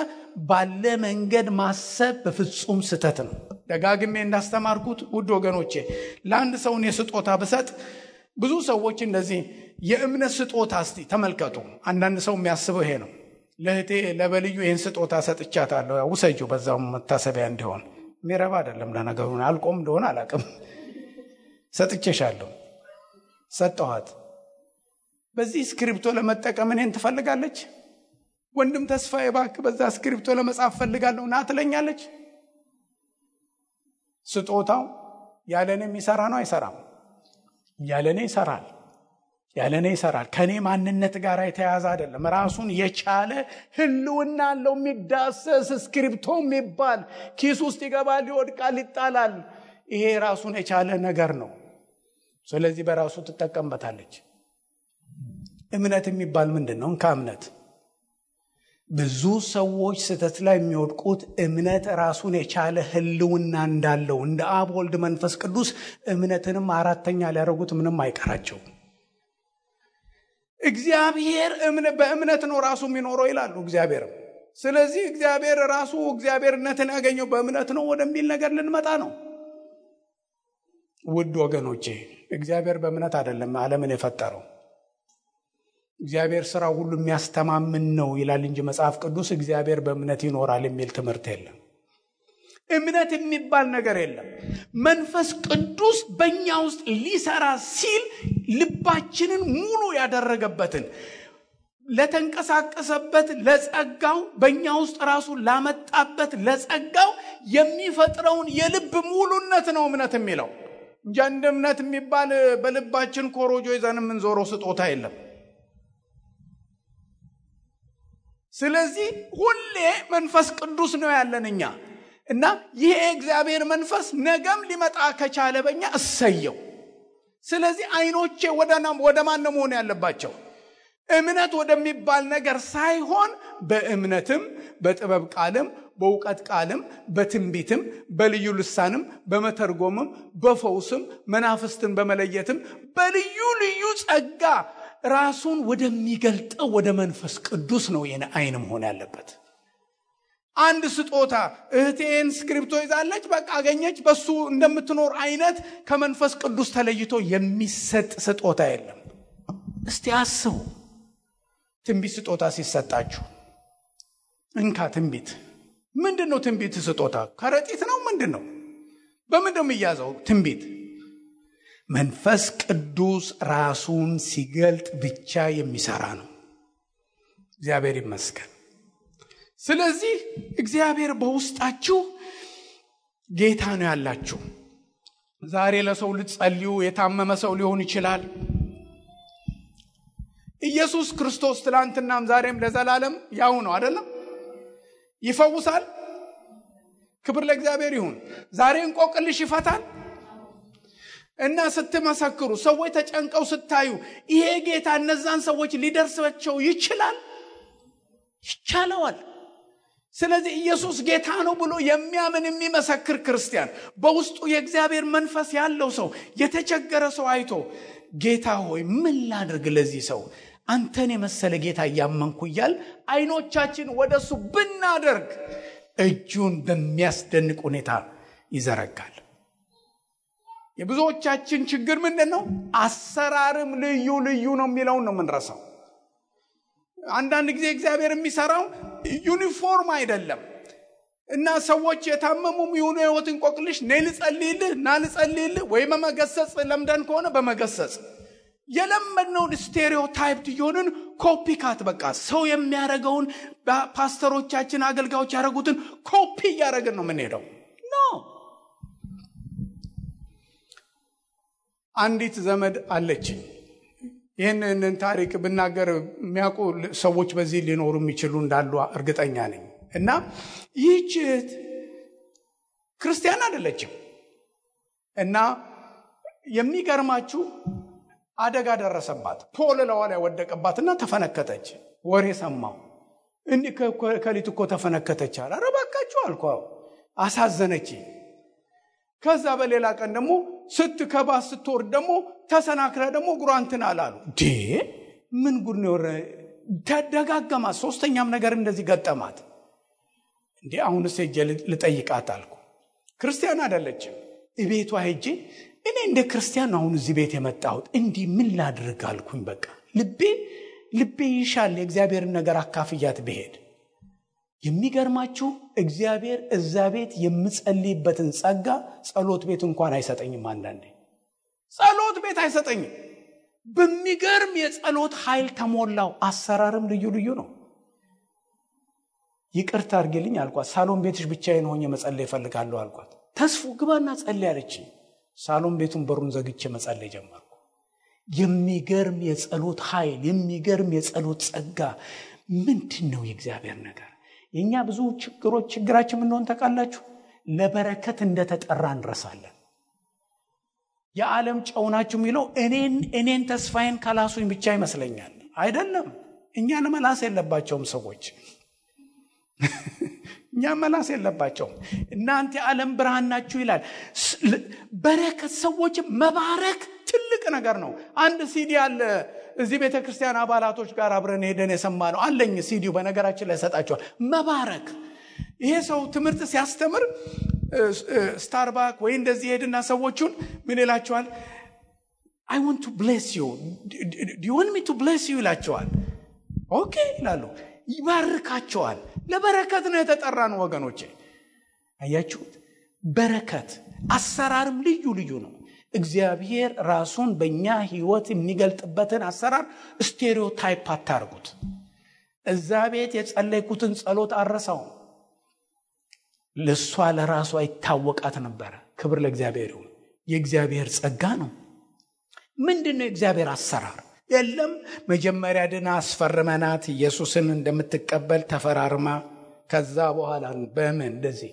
ባለ መንገድ ማሰብ በፍጹም ስተት ነው። ደጋግሜ እንዳስተማርኩት ውድ ወገኖቼ፣ ለአንድ ሰው የስጦታ ብሰጥ ብዙ ሰዎች እንደዚህ የእምነት ስጦታ እስቲ ተመልከቱ። አንዳንድ ሰው የሚያስበው ይሄ ነው። ለእህቴ ለበልዩ ይህን ስጦታ ሰጥቻታለሁ፣ ውሰጂው በዛው መታሰቢያ እንዲሆን። ሚረባ አይደለም ለነገሩ፣ አልቆም እንደሆነ አላቅም። ሰጥቼሻለሁ፣ ሰጠኋት። በዚህ ስክሪፕቶ ለመጠቀም እኔን ትፈልጋለች። ወንድም ተስፋዬ እባክህ በዛ ስክሪፕቶ ለመጻፍ ፈልጋለሁ ና ትለኛለች። ስጦታው ያለኔ የሚሰራ ነው አይሰራም? ያለኔ ይሰራል። ከኔ ማንነት ጋር የተያያዘ አይደለም። ራሱን የቻለ ህልውና አለው። የሚዳሰስ ስክሪፕቶ የሚባል ኪስ ውስጥ ይገባል፣ ይወድቃል፣ ይጣላል። ይሄ ራሱን የቻለ ነገር ነው። ስለዚህ በራሱ ትጠቀምበታለች። እምነት የሚባል ምንድን ነው? ከእምነት ብዙ ሰዎች ስህተት ላይ የሚወድቁት እምነት ራሱን የቻለ ህልውና እንዳለው እንደ አብ ወልድ መንፈስ ቅዱስ እምነትንም አራተኛ ሊያደርጉት ምንም አይቀራቸው። እግዚአብሔር በእምነት ነው ራሱ የሚኖረው ይላሉ እግዚአብሔርም። ስለዚህ እግዚአብሔር ራሱ እግዚአብሔርነትን ያገኘው በእምነት ነው ወደሚል ነገር ልንመጣ ነው። ውድ ወገኖቼ፣ እግዚአብሔር በእምነት አይደለም ዓለምን የፈጠረው። እግዚአብሔር ስራው ሁሉ የሚያስተማምን ነው ይላል እንጂ መጽሐፍ ቅዱስ እግዚአብሔር በእምነት ይኖራል የሚል ትምህርት የለም። እምነት የሚባል ነገር የለም። መንፈስ ቅዱስ በእኛ ውስጥ ሊሰራ ሲል ልባችንን ሙሉ ያደረገበትን ለተንቀሳቀሰበት ለጸጋው በእኛ ውስጥ ራሱ ላመጣበት ለጸጋው የሚፈጥረውን የልብ ሙሉነት ነው እምነት የሚለው እንጂ እንደ እምነት የሚባል በልባችን ኮሮጆ ይዘን የምንዞረው ስጦታ የለም። ስለዚህ ሁሌ መንፈስ ቅዱስ ነው ያለን እኛ እና ይሄ እግዚአብሔር መንፈስ ነገም ሊመጣ ከቻለ በእኛ እሰየው። ስለዚህ አይኖቼ ወደ ማን ነው መሆን ያለባቸው? እምነት ወደሚባል ነገር ሳይሆን በእምነትም በጥበብ ቃልም በእውቀት ቃልም በትንቢትም በልዩ ልሳንም በመተርጎምም በፈውስም መናፍስትን በመለየትም በልዩ ጸጋ ራሱን ወደሚገልጠው ወደ መንፈስ ቅዱስ ነው የኔ አይን መሆን ያለበት። አንድ ስጦታ እህቴን ስክሪፕቶ ይዛለች በቃ አገኘች በሱ እንደምትኖር አይነት ከመንፈስ ቅዱስ ተለይቶ የሚሰጥ ስጦታ የለም። እስቲ አስቡ። ትንቢት ስጦታ ሲሰጣችሁ እንካ ትንቢት ምንድነው? ትንቢት ስጦታ ከረጢት ነው ምንድነው? በምንድነው የሚያዘው ትንቢት? መንፈስ ቅዱስ ራሱን ሲገልጥ ብቻ የሚሰራ ነው። እግዚአብሔር ይመስገን። ስለዚህ እግዚአብሔር በውስጣችሁ ጌታ ነው ያላችሁ። ዛሬ ለሰው ልትጸልዩ የታመመ ሰው ሊሆን ይችላል። ኢየሱስ ክርስቶስ ትላንትናም ዛሬም ለዘላለም ያው ነው አይደለም? ይፈውሳል። ክብር ለእግዚአብሔር ይሁን። ዛሬ እንቆቅልሽ ይፈታል። እና ስትመሰክሩ ሰዎች ተጨንቀው ስታዩ ይሄ ጌታ እነዛን ሰዎች ሊደርሳቸው ይችላል። ይቻለዋል። ስለዚህ ኢየሱስ ጌታ ነው ብሎ የሚያምን የሚመሰክር ክርስቲያን በውስጡ የእግዚአብሔር መንፈስ ያለው ሰው የተቸገረ ሰው አይቶ ጌታ ሆይ ምን ላድርግ ለዚህ ሰው አንተን የመሰለ ጌታ ያመንኩ ይላል አይኖቻችን ወደሱ ብናደርግ እጁን በሚያስደንቅ ሁኔታ ይዘረጋል። የብዙዎቻችን ችግር ምንድነው? አሰራርም ልዩ ልዩ ነው የሚለው ነው ምንረሳው። አንዳንድ ጊዜ እግዚአብሔር የሚሰራው ዩኒፎርም አይደለም እና ሰዎች የታመሙም ይሁኑ ህይወት እንቆቅልሽ ልጸልይልህ ወይ በመገሰጽ ለምደን ከሆነ በመገሰጽ የለመድነውን ስቴሪዮታይፕድ የሆነን ኮፒካት በቃ ሰው የሚያደርገውን ፓስተሮቻችን አገልጋዮች ያደረጉትን ኮፒ እያደረግን ነው የምንሄደው። አንዲት ዘመድ አለችኝ። ይህንን ታሪክ ብናገር የሚያውቁ ሰዎች በዚህ ሊኖሩ የሚችሉ እንዳሉ እርግጠኛ ነኝ። እና ይህች ክርስቲያን አይደለችም። እና የሚገርማችሁ አደጋ ደረሰባት። ፖል ላይ ወደቀባትና ተፈነከተች። ወሬ ሰማው። እንዲህ ከሊት እኮ ተፈነከተች አለ። ኧረ እባካችሁ አልኳው። አሳዘነች። ከዛ በሌላ ቀን ደግሞ ስትከባስ ስትወርድ ደግሞ ተሰናክለ ደግሞ ጉራንትን አላሉ። ምን ጉድ ነው? ተደጋገማት። ሶስተኛም ነገር እንደዚህ ገጠማት። አሁንስ ሄጄ ልጠይቃት አልኩ። ክርስቲያን አይደለችም። እቤቷ ሄጄ እኔ እንደ ክርስቲያን አሁን እዚህ ቤት የመጣሁት እንዲህ ምን ላድርግ አልኩኝ። በቃ ልቤ ይሻል የእግዚአብሔርን ነገር አካፍያት ብሄድ። የሚገርማችሁ እግዚአብሔር እዛ ቤት የምጸልይበትን ጸጋ ጸሎት ቤት እንኳን አይሰጠኝም። አንዳንዴ ጸሎት ቤት አይሰጠኝም። በሚገርም የጸሎት ኃይል ተሞላው። አሰራርም ልዩ ልዩ ነው። ይቅርታ አድርጊልኝ አልኳት። ሳሎን ቤትሽ ብቻዬን ሆኜ መጸለይ እፈልጋለሁ አልኳት። ተስፉ ግባና ጸልይ አለችኝ። ሳሎን ቤቱን በሩን ዘግቼ መጸለይ ጀመርኩ። የሚገርም የጸሎት ኃይል፣ የሚገርም የጸሎት ጸጋ። ምንድነው የእግዚአብሔር ነገር? የኛ ብዙ ችግራችን ምን እንደሆነ ታውቃላችሁ? ለበረከት እንደተጠራ እንረሳለን። የዓለም ጨው ናችሁ የሚለው እኔን ተስፋዬን ካላሱኝ ብቻ ይመስለኛል። አይደለም። እኛን መላስ የለባቸውም ሰዎች። እኛ መላስ የለባቸውም። እናንተ የዓለም ብርሃን ናችሁ ይላል። በረከት ሰዎች መባረክ ትልቅ ነገር ነው። አንድ ሲዲ አለ እዚህ ቤተክርስቲያን አባላቶች ጋር አብረን ሄደን የሰማነው አለኝ። ሲዲው በነገራችን ላይ ሰጣቸዋል። መባረክ። ይሄ ሰው ትምህርት ሲያስተምር ስታርባክ ወይ እንደዚህ ሄድና ሰዎቹን ምን ይላቸዋል? I want to bless you. Do you want me to bless you ይላቸዋል። ኦኬ ይላሉ። ይባርካቸዋል። ለበረከት ነው የተጠራነው ወገኖቼ። አያችሁት? በረከት አሰራርም ልዩ ልዩ ነው። እግዚአብሔር ራሱን በእኛ ህይወት የሚገልጥበትን አሰራር ስቴሪዮታይፕ አታርጉት። እዛ ቤት የጸለይኩትን ጸሎት አረሳው። ለሷ ለራሷ ይታወቃት ነበር። ክብር ለእግዚአብሔር ይሁን። የእግዚአብሔር ጸጋ ነው። ምንድነው የእግዚአብሔር አሰራር? የለም መጀመሪያ ድና አስፈርመናት ኢየሱስን እንደምትቀበል ተፈራርማ ከዛ በኋላ በምን እንደዚህ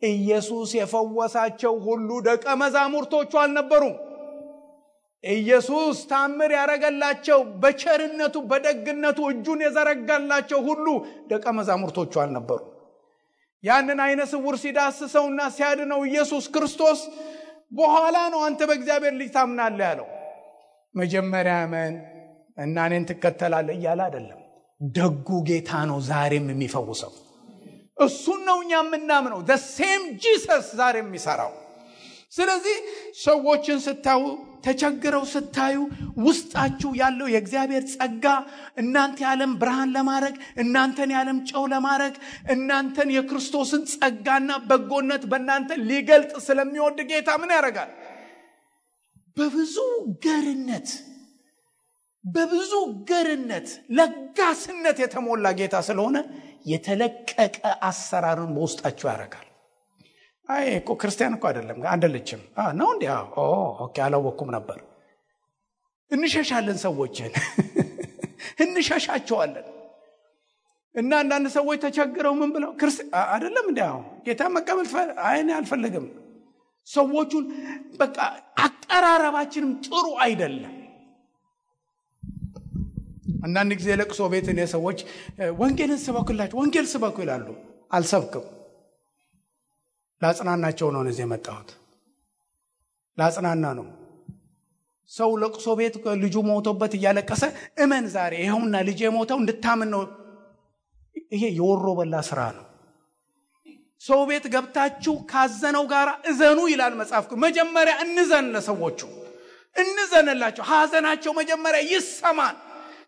ኢየሱስ የፈወሳቸው ሁሉ ደቀ መዛሙርቶቹ አልነበሩም። ኢየሱስ ታምር ያረጋላቸው በቸርነቱ በደግነቱ እጁን የዘረጋላቸው ሁሉ ደቀ መዛሙርቶቹ አልነበሩም። ያንን አይነ ስውር ሲዳስሰውና ሲያድነው ኢየሱስ ክርስቶስ በኋላ ነው አንተ በእግዚአብሔር ልጅ ታምናለህ ያለው። መጀመሪያ አመን እና እኔን ትከተላለህ እያለ አይደለም። ደጉ ጌታ ነው ዛሬም የሚፈውሰው። እሱን ነው እኛ የምናምነው። the same Jesus ዛሬም የሚሰራው። ስለዚህ ሰዎችን ስታዩ ተቸግረው ስታዩ ውስጣችሁ ያለው የእግዚአብሔር ጸጋ እናንተ የዓለም ብርሃን ለማድረግ እናንተን የዓለም ጨው ለማድረግ እናንተን የክርስቶስን ጸጋና በጎነት በእናንተ ሊገልጥ ስለሚወድ ጌታ ምን ያደርጋል? በብዙ ገርነት ለጋስነት የተሞላ ጌታ ስለሆነ የተለቀቀ አሰራርን በውስጣችሁ ያደርጋል። አይ እኮ ክርስቲያን እኮ አይደለችም ነው እንዴ? ኦኬ አላወኩም ነበር። እንሸሻለን ሰዎችን እንሸሻቸዋለን። እና አንዳንድ ሰዎች ተቸግረው ምን ብለው አይደለም እንዴ ጌታ መቀበል አይኔ አልፈልግም። ሰዎቹን በቃ አቀራረባችንም ጥሩ አይደለም። አንዳንድ ጊዜ ለቅሶ ቤት እኔ ሰዎች ወንጌልን ስበኩላችሁ ወንጌል ስበኩ ይላሉ። አልሰብክም። ላጽናናቸው ነው እዚህ የመጣሁት። ላጽናና ነው። ሰው ለቅሶ ቤት ልጁ ሞቶበት እያለቀሰ እመን ዛሬ ይሄውና ልጄ ሞተው እንድታምን ነው። ይሄ የወሮ በላ ስራ ነው። ሰው ቤት ገብታችሁ ካዘነው ጋር እዘኑ ይላል መጽሐፍ። መጀመሪያ እንዘን፣ ለሰዎቹ እንዘንላቸው። ሐዘናቸው መጀመሪያ ይሰማል።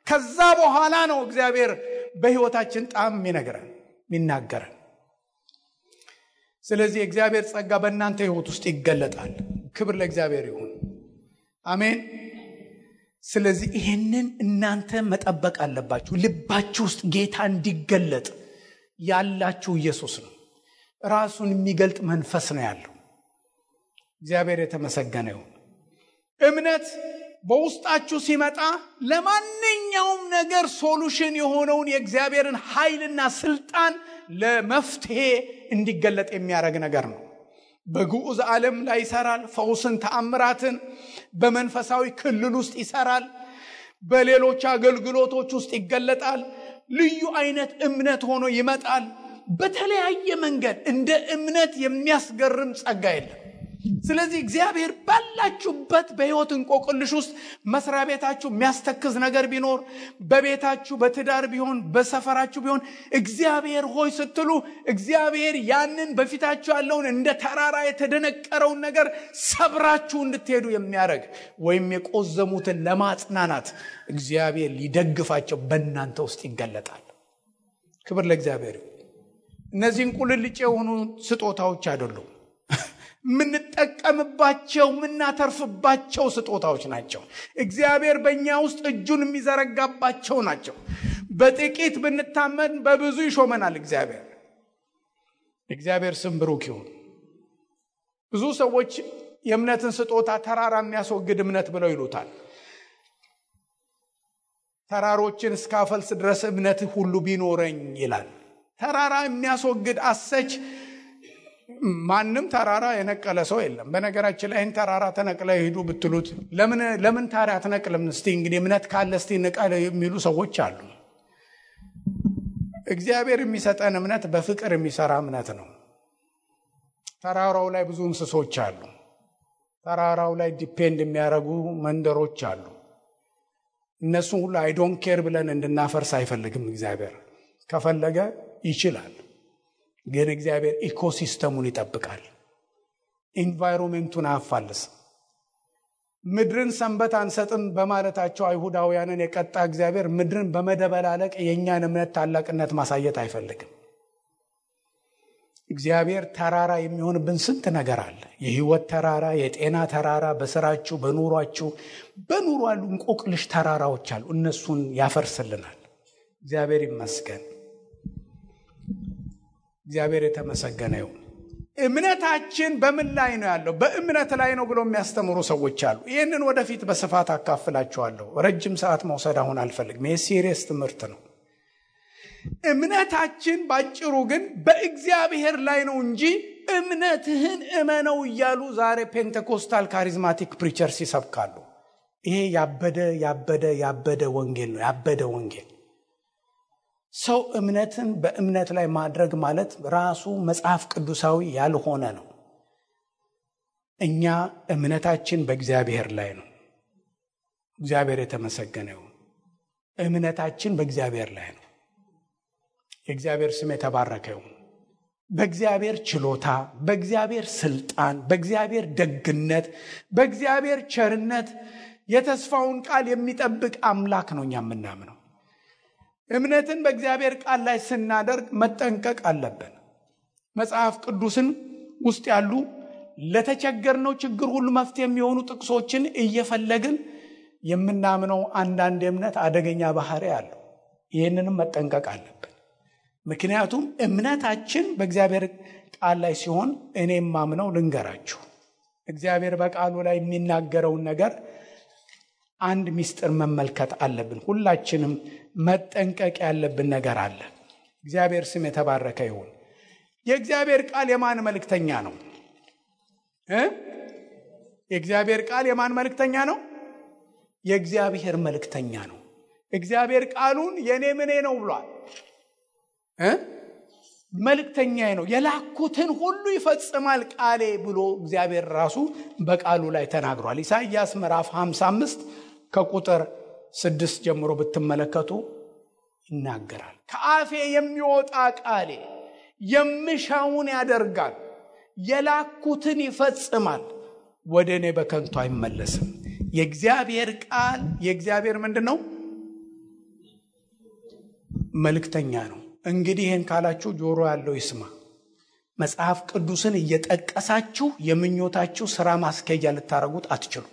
ከዛ በኋላ ነው እግዚአብሔር በህይወታችን ጣም የሚናገረን። ስለዚህ እግዚአብሔር ጸጋ በእናንተ ህይወት ውስጥ ይገለጣል። ክብር ለእግዚአብሔር ይሁን። አሜን። ስለዚህ ይሄንን እናንተ መጠበቅ አለባችሁ። ልባችሁ ውስጥ ጌታ እንዲገለጥ ያላችሁ ኢየሱስ ነው። ራሱን የሚገልጥ መንፈስ ነው ያለው። እግዚአብሔር የተመሰገነ ይሁን። እምነት በውስጣችሁ ሲመጣ ለማንኛውም ነገር ሶሉሽን የሆነውን የእግዚአብሔርን ኃይልና ስልጣን ለመፍትሄ እንዲገለጥ የሚያደርግ ነገር ነው። በግዑዝ ዓለም ላይ ይሰራል። ፈውስን፣ ተአምራትን በመንፈሳዊ ክልል ውስጥ ይሰራል። በሌሎች አገልግሎቶች ውስጥ ይገለጣል። ልዩ አይነት እምነት ሆኖ ይመጣል። በተለያየ መንገድ እንደ እምነት የሚያስገርም ጸጋ የለም። ስለዚህ እግዚአብሔር ባላችሁበት በሕይወት እንቆቅልሽ ውስጥ መስሪያ ቤታችሁ የሚያስተክዝ ነገር ቢኖር፣ በቤታችሁ በትዳር ቢሆን፣ በሰፈራችሁ ቢሆን እግዚአብሔር ሆይ ስትሉ እግዚአብሔር ያንን በፊታችሁ ያለውን እንደ ተራራ የተደነቀረውን ነገር ሰብራችሁ እንድትሄዱ የሚያደርግ ወይም የቆዘሙትን ለማጽናናት እግዚአብሔር ሊደግፋቸው በእናንተ ውስጥ ይገለጣል። ክብር ለእግዚአብሔር። እነዚህን ቁልልጭ የሆኑ ስጦታዎች አይደሉም። ምንጠቀምባቸው ምናተርፍባቸው ስጦታዎች ናቸው። እግዚአብሔር በእኛ ውስጥ እጁን የሚዘረጋባቸው ናቸው። በጥቂት ብንታመን በብዙ ይሾመናል እግዚአብሔር። እግዚአብሔር ስም ብሩክ ይሁን። ብዙ ሰዎች የእምነትን ስጦታ ተራራ የሚያስወግድ እምነት ብለው ይሉታል። ተራሮችን እስካፈልስ ድረስ እምነት ሁሉ ቢኖረኝ ይላል። ተራራ የሚያስወግድ አሰች ማንም ተራራ የነቀለ ሰው የለም። በነገራችን ላይ ተራራ ተነቅለ ሄዱ ብትሉት ለምን ታሪያ ተነቅለም እስቲ እንግዲህ እምነት ካለ እስቲ ነቀለ የሚሉ ሰዎች አሉ። እግዚአብሔር የሚሰጠን እምነት በፍቅር የሚሰራ እምነት ነው። ተራራው ላይ ብዙ እንስሶች አሉ። ተራራው ላይ ዲፔንድ የሚያደርጉ መንደሮች አሉ። እነሱ ሁሉ አይ ዶንት ኬር ብለን እንድናፈርስ አይፈልግም እግዚአብሔር። ከፈለገ ይችላል። ግን እግዚአብሔር ኢኮሲስተሙን ይጠብቃል። ኢንቫይሮንመንቱን አያፋልስ። ምድርን ሰንበት አንሰጥም በማለታቸው አይሁዳውያንን የቀጣ እግዚአብሔር ምድርን በመደበላለቅ የኛን እምነት ታላቅነት ማሳየት አይፈልግም። እግዚአብሔር ተራራ የሚሆንብን ስንት ነገር አለ። የህይወት ተራራ፣ የጤና ተራራ፣ በስራችሁ በኑሯችሁ በኑሮ ያሉ እንቆቅልሽ ተራራዎች አሉ። እነሱን ያፈርስልናል። እግዚአብሔር ይመስገን። እግዚአብሔር የተመሰገነ ይሁን። እምነታችን በምን ላይ ነው ያለው? በእምነት ላይ ነው ብሎ የሚያስተምሩ ሰዎች አሉ። ይህንን ወደፊት በስፋት አካፍላችኋለሁ። ረጅም ሰዓት መውሰድ አሁን አልፈልግም። ይህ ሲሪየስ ትምህርት ነው። እምነታችን ባጭሩ ግን በእግዚአብሔር ላይ ነው እንጂ እምነትህን እመነው እያሉ ዛሬ ፔንቴኮስታል ካሪዝማቲክ ፕሪቸርስ ይሰብካሉ። ይሄ ያበደ ወንጌል ነው። ያበደ ወንጌል። ሰው እምነትን በእምነት ላይ ማድረግ ማለት ራሱ መጽሐፍ ቅዱሳዊ ያልሆነ ነው። እኛ እምነታችን በእግዚአብሔር ላይ ነው። እግዚአብሔር የተመሰገነ ይሁን። እምነታችን በእግዚአብሔር ላይ ነው። የእግዚአብሔር ስም የተባረከ ይሁን። በእግዚአብሔር ችሎታ፣ በእግዚአብሔር ስልጣን፣ በእግዚአብሔር ደግነት፣ በእግዚአብሔር ቸርነት የተስፋውን ቃል የሚጠብቅ አምላክ ነው እኛ የምናምነው። እምነትን በእግዚአብሔር ቃል ላይ ስናደርግ መጠንቀቅ አለብን። መጽሐፍ ቅዱስን ውስጥ ያሉ ለተቸገርነው ችግር ሁሉ መፍትሄ የሚሆኑ ጥቅሶችን እየፈለግን የምናምነው አንዳንድ እምነት አደገኛ ባህሪ አለው። ይህንንም መጠንቀቅ አለብን። ምክንያቱም እምነታችን በእግዚአብሔር ቃል ላይ ሲሆን እኔም ማምነው ልንገራችሁ፣ እግዚአብሔር በቃሉ ላይ የሚናገረውን ነገር አንድ ሚስጥር መመልከት አለብን። ሁላችንም መጠንቀቅ ያለብን ነገር አለ። እግዚአብሔር ስም የተባረከ ይሁን። የእግዚአብሔር ቃል የማን መልእክተኛ ነው? የእግዚአብሔር ቃል የማን መልእክተኛ ነው? የእግዚአብሔር መልእክተኛ ነው። እግዚአብሔር ቃሉን የኔ ምኔ ነው ብሏል። መልእክተኛዬ ነው፣ የላኩትን ሁሉ ይፈጽማል ቃሌ ብሎ እግዚአብሔር ራሱ በቃሉ ላይ ተናግሯል። ኢሳይያስ ምዕራፍ 55 ከቁጥር 6 ጀምሮ ብትመለከቱ ይናገራል። ከአፌ የሚወጣ ቃሌ የምሻውን ያደርጋል፣ የላኩትን ይፈጽማል፣ ወደ እኔ በከንቱ አይመለስም። የእግዚአብሔር ቃል የእግዚአብሔር ምንድነው? መልእክተኛ ነው። እንግዲህ ይህን ካላችሁ ጆሮ ያለው ይስማ። መጽሐፍ ቅዱስን እየጠቀሳችሁ የምኞታችሁ ሥራ ማስኬጃ ልታረጉት አትችሉ።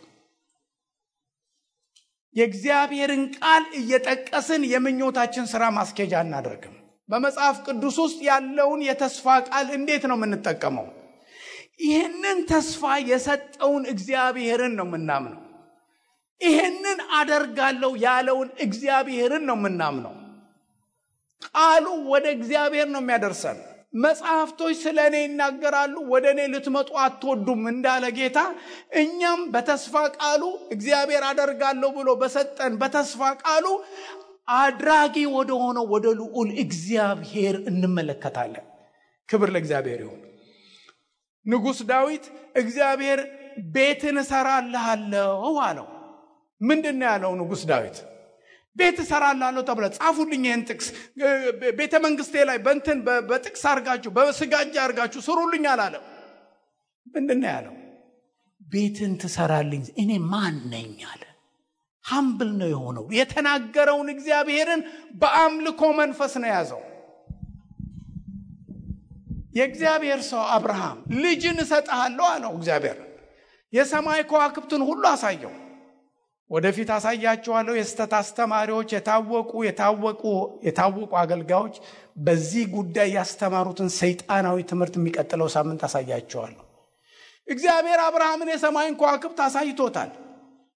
የእግዚአብሔርን ቃል እየጠቀስን የምኞታችን ሥራ ማስኬጃ እናደርግም። በመጽሐፍ ቅዱስ ውስጥ ያለውን የተስፋ ቃል እንዴት ነው የምንጠቀመው? ይህንን ተስፋ የሰጠውን እግዚአብሔርን ነው የምናምነው። ይህንን አደርጋለሁ ያለውን እግዚአብሔርን ነው የምናምነው። ቃሉ ወደ እግዚአብሔር ነው የሚያደርሰን። መጽሐፍቶች ስለ እኔ ይናገራሉ፣ ወደ እኔ ልትመጡ አትወዱም እንዳለ ጌታ፣ እኛም በተስፋ ቃሉ እግዚአብሔር አደርጋለሁ ብሎ በሰጠን በተስፋ ቃሉ አድራጊ ወደ ሆነው ወደ ልዑል እግዚአብሔር እንመለከታለን። ክብር ለእግዚአብሔር ይሁን። ንጉሥ ዳዊት እግዚአብሔር ቤትን እሰራልሃለሁ አለው። ምንድን ነው ያለው ንጉሥ ዳዊት? ቤት እሰራልሃለሁ ተብለ ጻፉልኝ ይህን ጥቅስ ቤተ መንግስቴ ላይ በእንትን በጥቅስ አርጋችሁ በስጋጃ አርጋችሁ ስሩልኝ አላለም። ምንድን ነው ያለው? ቤትን ትሰራልኝ እኔ ማን ነኝ አለ። ሀምብል ነው የሆነው። የተናገረውን እግዚአብሔርን በአምልኮ መንፈስ ነው ያዘው። የእግዚአብሔር ሰው አብርሃም ልጅን እሰጥሃለሁ አለው እግዚአብሔር። የሰማይ ከዋክብትን ሁሉ አሳየው። ወደፊት አሳያቸዋለሁ። የስተት አስተማሪዎች የታወቁ አገልጋዮች በዚህ ጉዳይ ያስተማሩትን ሰይጣናዊ ትምህርት የሚቀጥለው ሳምንት አሳያቸዋለሁ። እግዚአብሔር አብርሃምን የሰማይን ከዋክብት አሳይቶታል።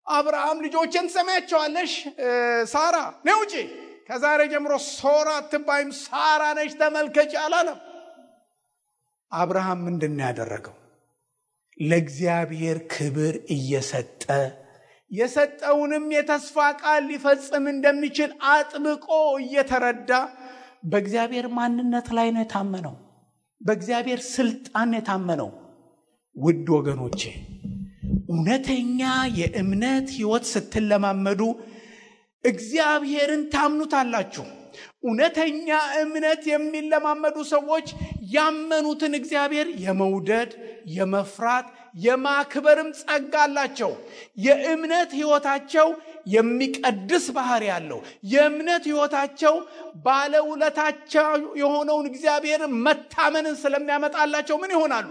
አብርሃም ልጆችን ትሰማያቸዋለሽ፣ ሳራ ነው እንጂ ከዛሬ ጀምሮ ሶራ አትባይም ሳራ ነሽ ተመልከች አላለም። አብርሃም ምንድን ነው ያደረገው? ለእግዚአብሔር ክብር እየሰጠ የሰጠውንም የተስፋ ቃል ሊፈጽም እንደሚችል አጥብቆ እየተረዳ በእግዚአብሔር ማንነት ላይ ነው የታመነው። በእግዚአብሔር ስልጣን የታመነው። ውድ ወገኖቼ እውነተኛ የእምነት ሕይወት ስትለማመዱ እግዚአብሔርን ታምኑታላችሁ። እውነተኛ እምነት የሚለማመዱ ሰዎች ያመኑትን እግዚአብሔር የመውደድ የመፍራት የማክበርም ጸጋ አላቸው። የእምነት ሕይወታቸው የሚቀድስ ባህሪ ያለው የእምነት ሕይወታቸው ባለውለታቸው የሆነውን እግዚአብሔርን መታመንን ስለሚያመጣላቸው ምን ይሆናሉ?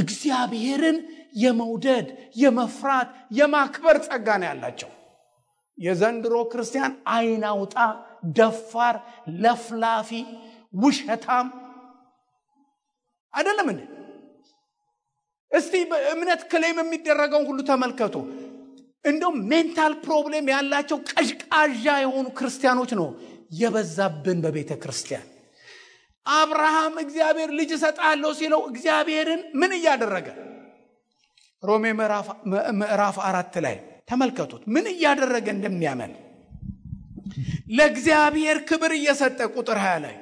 እግዚአብሔርን የመውደድ የመፍራት የማክበር ጸጋ ነው ያላቸው። የዘንድሮ ክርስቲያን አይናውጣ፣ ደፋር፣ ለፍላፊ፣ ውሸታም አይደለም እንዴ? እስቲ በእምነት ክሌም የሚደረገውን ሁሉ ተመልከቱ። እንደው ሜንታል ፕሮብሌም ያላቸው ቀዥቃዣ የሆኑ ክርስቲያኖች ነው የበዛብን በቤተ ክርስቲያን። አብርሃም እግዚአብሔር ልጅ እሰጣለሁ ሲለው እግዚአብሔርን ምን እያደረገ? ሮሜ ምዕራፍ 4 ላይ ተመልከቱት ምን እያደረገ እንደሚያመን። ለእግዚአብሔር ክብር እየሰጠ ቁጥር 20 ላይ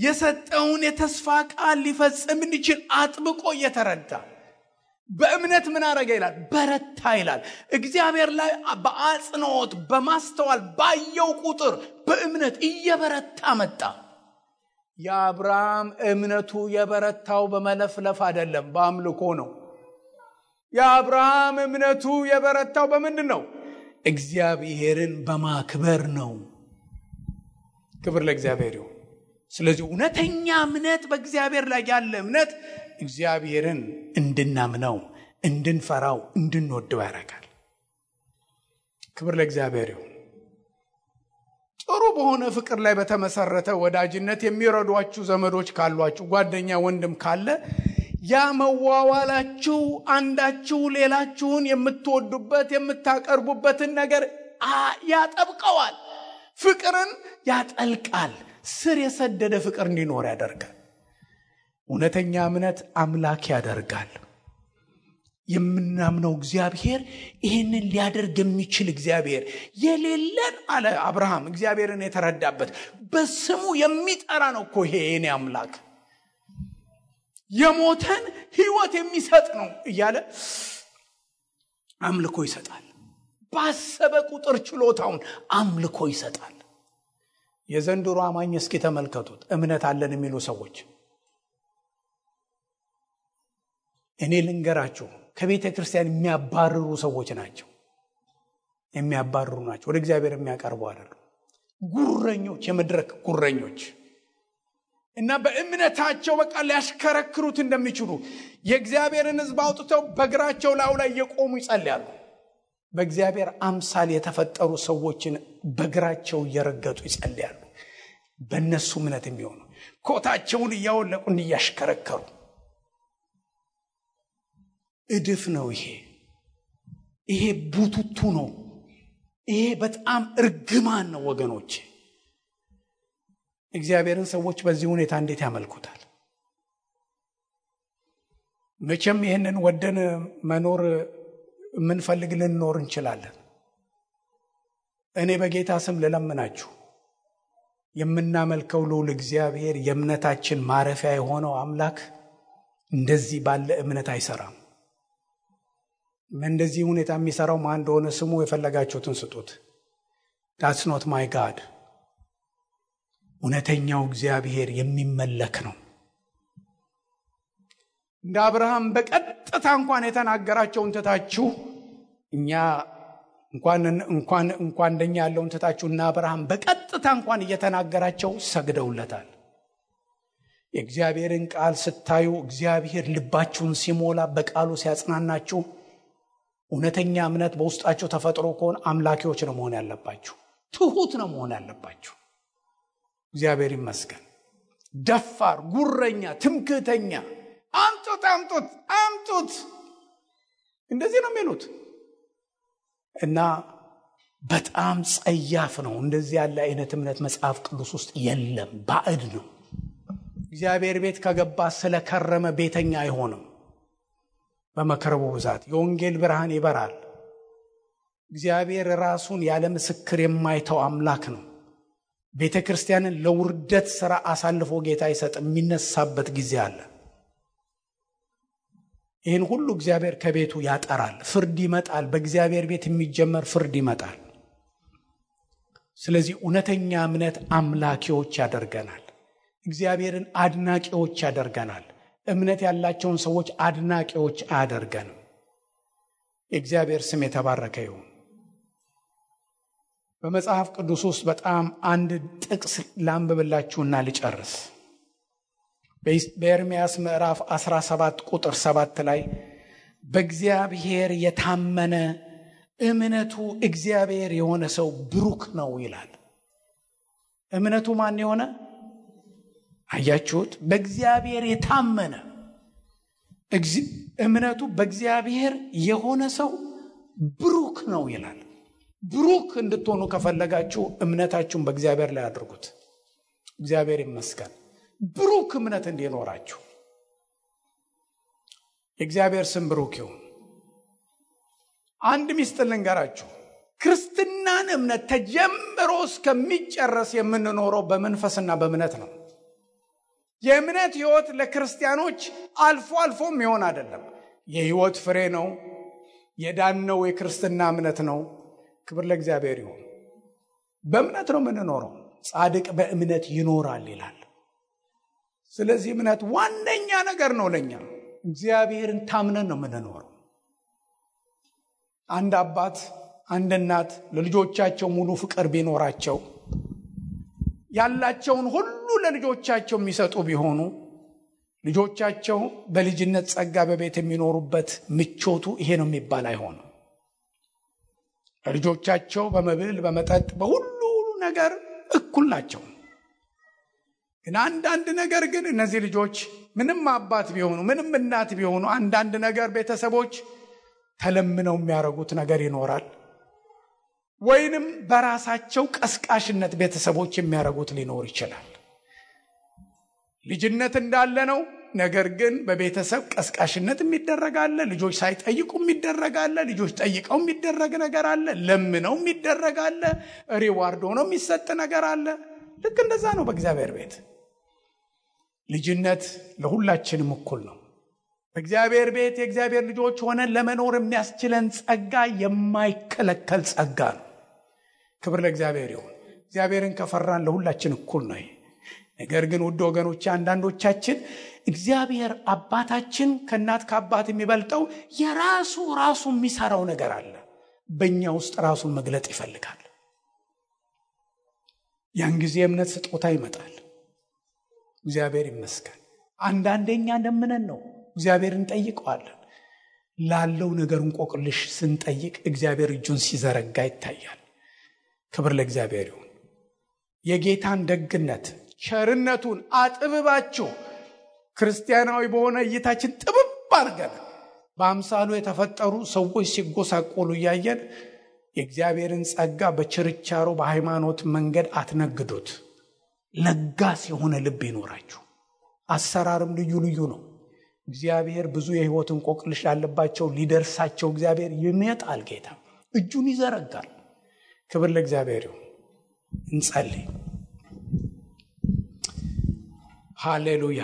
የሰጠውን የተስፋ ቃል ሊፈጽም እንዲችል አጥብቆ እየተረዳ በእምነት ምን አረገ ይላል? በረታ ይላል። እግዚአብሔር ላይ በአጽንኦት በማስተዋል ባየው ቁጥር በእምነት እየበረታ መጣ። የአብርሃም እምነቱ የበረታው በመለፍለፍ አይደለም፣ በአምልኮ ነው። የአብርሃም እምነቱ የበረታው በምንድን ነው? እግዚአብሔርን በማክበር ነው። ክብር ለእግዚአብሔር ይሁን። ስለዚህ እውነተኛ እምነት በእግዚአብሔር ላይ ያለ እምነት እግዚአብሔርን እንድናምነው፣ እንድንፈራው፣ እንድንወደው ያደርጋል። ክብር ለእግዚአብሔር ይሁን። ጥሩ በሆነ ፍቅር ላይ በተመሰረተ ወዳጅነት የሚረዷችሁ ዘመዶች ካሏችሁ፣ ጓደኛ ወንድም ካለ ያ መዋዋላችሁ አንዳችሁ ሌላችሁን የምትወዱበት የምታቀርቡበትን ነገር ያጠብቀዋል። ፍቅርን ያጠልቃል። ስር የሰደደ ፍቅር እንዲኖር ያደርጋል። እውነተኛ እምነት አምላክ ያደርጋል። የምናምነው እግዚአብሔር ይህንን ሊያደርግ የሚችል እግዚአብሔር የሌለን አለ አብርሃም እግዚአብሔርን የተረዳበት በስሙ የሚጠራ ነው እኮ ይሄ የኔ አምላክ የሞተን ሕይወት የሚሰጥ ነው እያለ አምልኮ ይሰጣል። ባሰበ ቁጥር ችሎታውን አምልኮ ይሰጣል። የዘንድሮ አማኝ እስኪ ተመልከቱት እምነት አለን የሚሉ ሰዎች እኔ ልንገራችሁ ከቤተ ክርስቲያን የሚያባርሩ ሰዎች ናቸው። ወደ እግዚአብሔር የሚያቀርቡ አይደሉም። ጉረኞች፣ የመድረክ ጉረኞች እና በእምነታቸው በቃ ሊያሽከረክሩት እንደሚችሉ የእግዚአብሔርን ሕዝብ አውጥተው በእግራቸው ላይ የቆሙ ይጸልያሉ። በእግዚአብሔር አምሳል የተፈጠሩ ሰዎችን በእግራቸው እየረገጡ ይጸልያሉ። በእነሱ እምነት የሚሆኑ ኮታቸውን እያወለቁ እንዲያሽከረከሩ እድፍ ነው። ይሄ ቡቱቱ ነው። ይሄ በጣም እርግማን ነው ወገኖች። እግዚአብሔርን ሰዎች በዚህ ሁኔታ እንዴት ያመልኩታል? መቼም ይህንን ወደን መኖር የምንፈልግ ልንኖር እንችላለን። እኔ በጌታ ስም ልለምናችሁ የምናመልከው ልዑል እግዚአብሔር የእምነታችን ማረፊያ የሆነው አምላክ እንደዚህ ባለ እምነት አይሰራም። እንደዚህ ሁኔታ የሚሰራው ማን እንደሆነ ስሙ፣ የፈለጋችሁትን ስጡት። that's not my God። እውነተኛው እግዚአብሔር የሚመለክ ነው። እንደ አብርሃም በቀጥታ እንኳን የተናገራቸውን ትታችሁ እኛ እንኳን እንደኛ ያለውን ትታችሁ እና አብርሃም በቀጥታ እንኳን እየተናገራቸው ሰግደውለታል። የእግዚአብሔርን ቃል ስታዩ እግዚአብሔር ልባችሁን ሲሞላ በቃሉ ሲያጽናናችሁ እውነተኛ እምነት በውስጣችሁ ተፈጥሮ ከሆነ አምላኪዎች ነው መሆን ያለባችሁ። ትሁት ነው መሆን ያለባችሁ። እግዚአብሔር ይመስገን። ደፋር፣ ጉረኛ፣ ትምክህተኛ አምጡት እንደዚህ ነው የሚሉት እና በጣም ጸያፍ ነው። እንደዚህ ያለ አይነት እምነት መጽሐፍ ቅዱስ ውስጥ የለም። ባዕድ ነው። እግዚአብሔር ቤት ከገባ ስለከረመ ቤተኛ አይሆንም። በመከረቡ ብዛት የወንጌል ብርሃን ይበራል። እግዚአብሔር ራሱን ያለ ምስክር የማይተው አምላክ ነው። ቤተ ክርስቲያንን ለውርደት ሥራ አሳልፎ ጌታ ይሰጥ የሚነሳበት ጊዜ አለ። ይህን ሁሉ እግዚአብሔር ከቤቱ ያጠራል። ፍርድ ይመጣል። በእግዚአብሔር ቤት የሚጀመር ፍርድ ይመጣል። ስለዚህ እውነተኛ እምነት አምላኪዎች ያደርገናል። እግዚአብሔርን አድናቂዎች ያደርገናል። እምነት ያላቸውን ሰዎች አድናቂዎች አያደርገንም። የእግዚአብሔር ስም የተባረከ ይሁን። በመጽሐፍ ቅዱስ ውስጥ በጣም አንድ ጥቅስ ላንብብላችሁና ልጨርስ። በኤርምያስ ምዕራፍ 17 ቁጥር 7 ላይ በእግዚአብሔር የታመነ እምነቱ እግዚአብሔር የሆነ ሰው ብሩክ ነው ይላል። እምነቱ ማን የሆነ? አያችሁት? በእግዚአብሔር የታመነ እምነቱ በእግዚአብሔር የሆነ ሰው ብሩክ ነው ይላል። ብሩክ እንድትሆኑ ከፈለጋችሁ እምነታችሁን በእግዚአብሔር ላይ አድርጉት። እግዚአብሔር ይመስገን። ብሩክ እምነት እንዲኖራችሁ የእግዚአብሔር ስም ብሩክ ይሁን። አንድ ሚስጥር ልንገራችሁ። ክርስትናን እምነት ተጀምሮ እስከሚጨረስ የምንኖረው በመንፈስና በእምነት ነው። የእምነት ሕይወት ለክርስቲያኖች አልፎ የሚሆን አይደለም። የሕይወት ፍሬ ነው። የዳነው የክርስትና እምነት ነው። ክብር ለእግዚአብሔር ይሁን። በእምነት ነው የምንኖረው። ጻድቅ በእምነት ይኖራል ይላል። ስለዚህ እምነት ዋነኛ ነገር ነው ለኛ። እግዚአብሔርን ታምነን ነው የምንኖረው። አንድ አባት አንድ እናት ለልጆቻቸው ሙሉ ፍቅር ቢኖራቸው ያላቸውን ሁሉ ለልጆቻቸው የሚሰጡ ቢሆኑ ልጆቻቸው በልጅነት ጸጋ በቤት የሚኖሩበት ምቾቱ ይሄ ነው የሚባል አይሆንም። ልጆቻቸው በመብል በመጠጥ በሁሉ ነገር እኩል ናቸው። ግን አንዳንድ ነገር ግን እነዚህ ልጆች ምንም አባት ቢሆኑ ምንም እናት ቢሆኑ አንዳንድ ነገር ቤተሰቦች ተለምነው የሚያረጉት ነገር ይኖራል። ወይንም በራሳቸው ቀስቃሽነት ቤተሰቦች የሚያረጉት ሊኖር ይችላል። ልጅነት እንዳለ ነው። ነገር ግን በቤተሰብ ቀስቃሽነት የሚደረጋለ፣ ልጆች ሳይጠይቁ የሚደረጋለ፣ ልጆች ጠይቀው የሚደረግ ነገር አለ፣ ለምነው የሚደረጋለ፣ ሪዋርድ ሆኖ የሚሰጥ ነገር አለ። ልክ እንደዛ ነው በእግዚአብሔር ቤት። ልጅነት ለሁላችንም እኩል ነው። በእግዚአብሔር ቤት የእግዚአብሔር ልጆች ሆነን ለመኖር የሚያስችለን ጸጋ የማይከለከል ጸጋ ነው። ክብር ለእግዚአብሔር ይሁን። እግዚአብሔርን ከፈራን ለሁላችን እኩል ነው። ነገር ግን ውድ ወገኖች፣ አንዳንዶቻችን እግዚአብሔር አባታችን ከእናት ከአባት የሚበልጠው የራሱ የሚሰራው ነገር አለ። በእኛ ውስጥ ራሱን መግለጥ ይፈልጋል። ያን ጊዜ እምነት ስጦታ ይመጣል። እግዚአብሔር ይመስገን። አንዳንዴኛ እንደምነን ነው እግዚአብሔርን ጠይቀዋለን። ላለው ነገር እንቆቅልሽ ስንጠይቅ እግዚአብሔር እጁን ሲዘረጋ ይታያል። ክብር ለእግዚአብሔር ይሁን። የጌታን ደግነት ቸርነቱን አጥብባችሁ ክርስቲያናዊ በሆነ እይታችን ጥብብ አድርገን በአምሳሉ የተፈጠሩ ሰዎች ሲጎሳቆሉ እያየን የእግዚአብሔርን ጸጋ በችርቻሮ በሃይማኖት መንገድ አትነግዱት። ለጋስ የሆነ ልብ ይኖራችሁ። አሰራርም ልዩ ልዩ ነው። እግዚአብሔር ብዙ የህይወት እንቆቅልሽ ያለባቸው ሊደርሳቸው እግዚአብሔር ይመጣል። ጌታ እጁን ይዘረጋል። ክብር ለእግዚአብሔር ይሁን። እንጸልይ። ሃሌሉያ።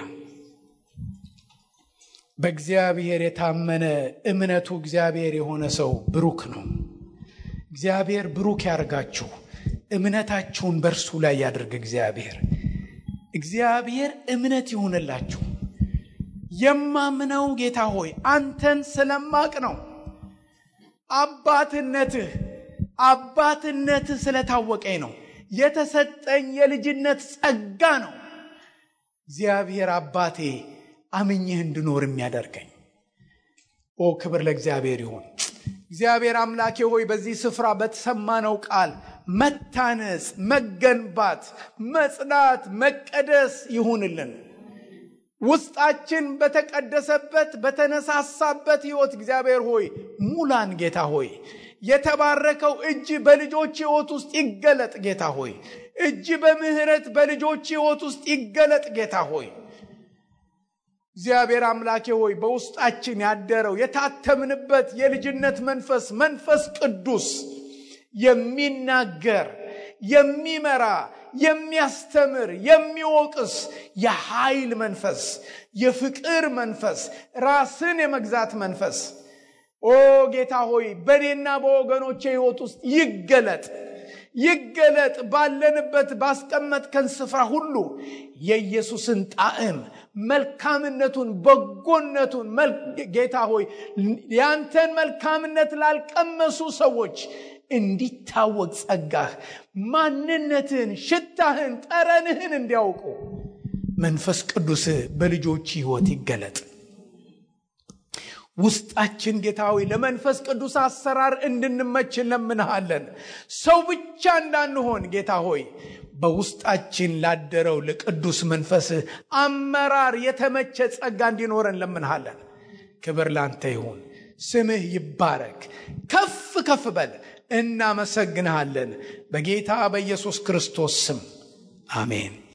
በእግዚአብሔር የታመነ እምነቱ እግዚአብሔር የሆነ ሰው ብሩክ ነው። እግዚአብሔር ብሩክ ያርጋችሁ። እምነታችሁን በእርሱ ላይ ያድርግ። እግዚአብሔር እምነት ይሁንላችሁ። የማምነው ጌታ ሆይ አንተን ስለማቅ ነው። አባትነትህ ስለታወቀኝ ነው። የተሰጠኝ የልጅነት ጸጋ ነው። እግዚአብሔር አባቴ አምኜህ እንድኖር የሚያደርገኝ። ክብር ለእግዚአብሔር ይሁን። እግዚአብሔር አምላኬ ሆይ በዚህ ስፍራ በተሰማነው ቃል መታነጽ፣ መገንባት፣ መጽናት፣ መቀደስ ይሁንልን። ውስጣችን በተቀደሰበት በተነሳሳበት ሕይወት እግዚአብሔር ሆይ ሙላን። ጌታ ሆይ የተባረከው እጅ በልጆች ሕይወት ውስጥ ይገለጥ። ጌታ ሆይ እጅ በምህረት በልጆች ሕይወት ውስጥ ይገለጥ። ጌታ ሆይ እግዚአብሔር አምላኬ ሆይ በውስጣችን ያደረው የታተምንበት የልጅነት መንፈስ ቅዱስ የሚናገር፣ የሚመራ፣ የሚያስተምር፣ የሚወቅስ የኃይል መንፈስ፣ የፍቅር መንፈስ፣ ራስን የመግዛት መንፈስ ጌታ ሆይ በኔና በወገኖቼ ሕይወት ውስጥ ይገለጥ። ባለንበት ባስቀመጥከን ስፍራ ሁሉ የኢየሱስን ጣዕም፣ መልካምነቱን፣ በጎነቱን ጌታ ሆይ ያንተን መልካምነት ላልቀመሱ ሰዎች እንዲታወቅ ጸጋህ፣ ማንነትህን፣ ሽታህን፣ ጠረንህን እንዲያውቁ መንፈስ ቅዱስ በልጆች ሕይወት ይገለጥ። ውስጣችን ጌታ ሆይ ለመንፈስ ቅዱስ አሰራር እንድንመች እንለምንሃለን። ሰው ብቻ እንዳንሆን ጌታ ሆይ በውስጣችን ላደረው ለቅዱስ መንፈስ አመራር የተመቸ ጸጋ እንዲኖረን እንለምንሃለን። ክብር ላንተ ይሁን። ስምህ ይባረክ። ከፍ በል። እናመሰግንሃለን በጌታ በኢየሱስ ክርስቶስ ስም አሜን።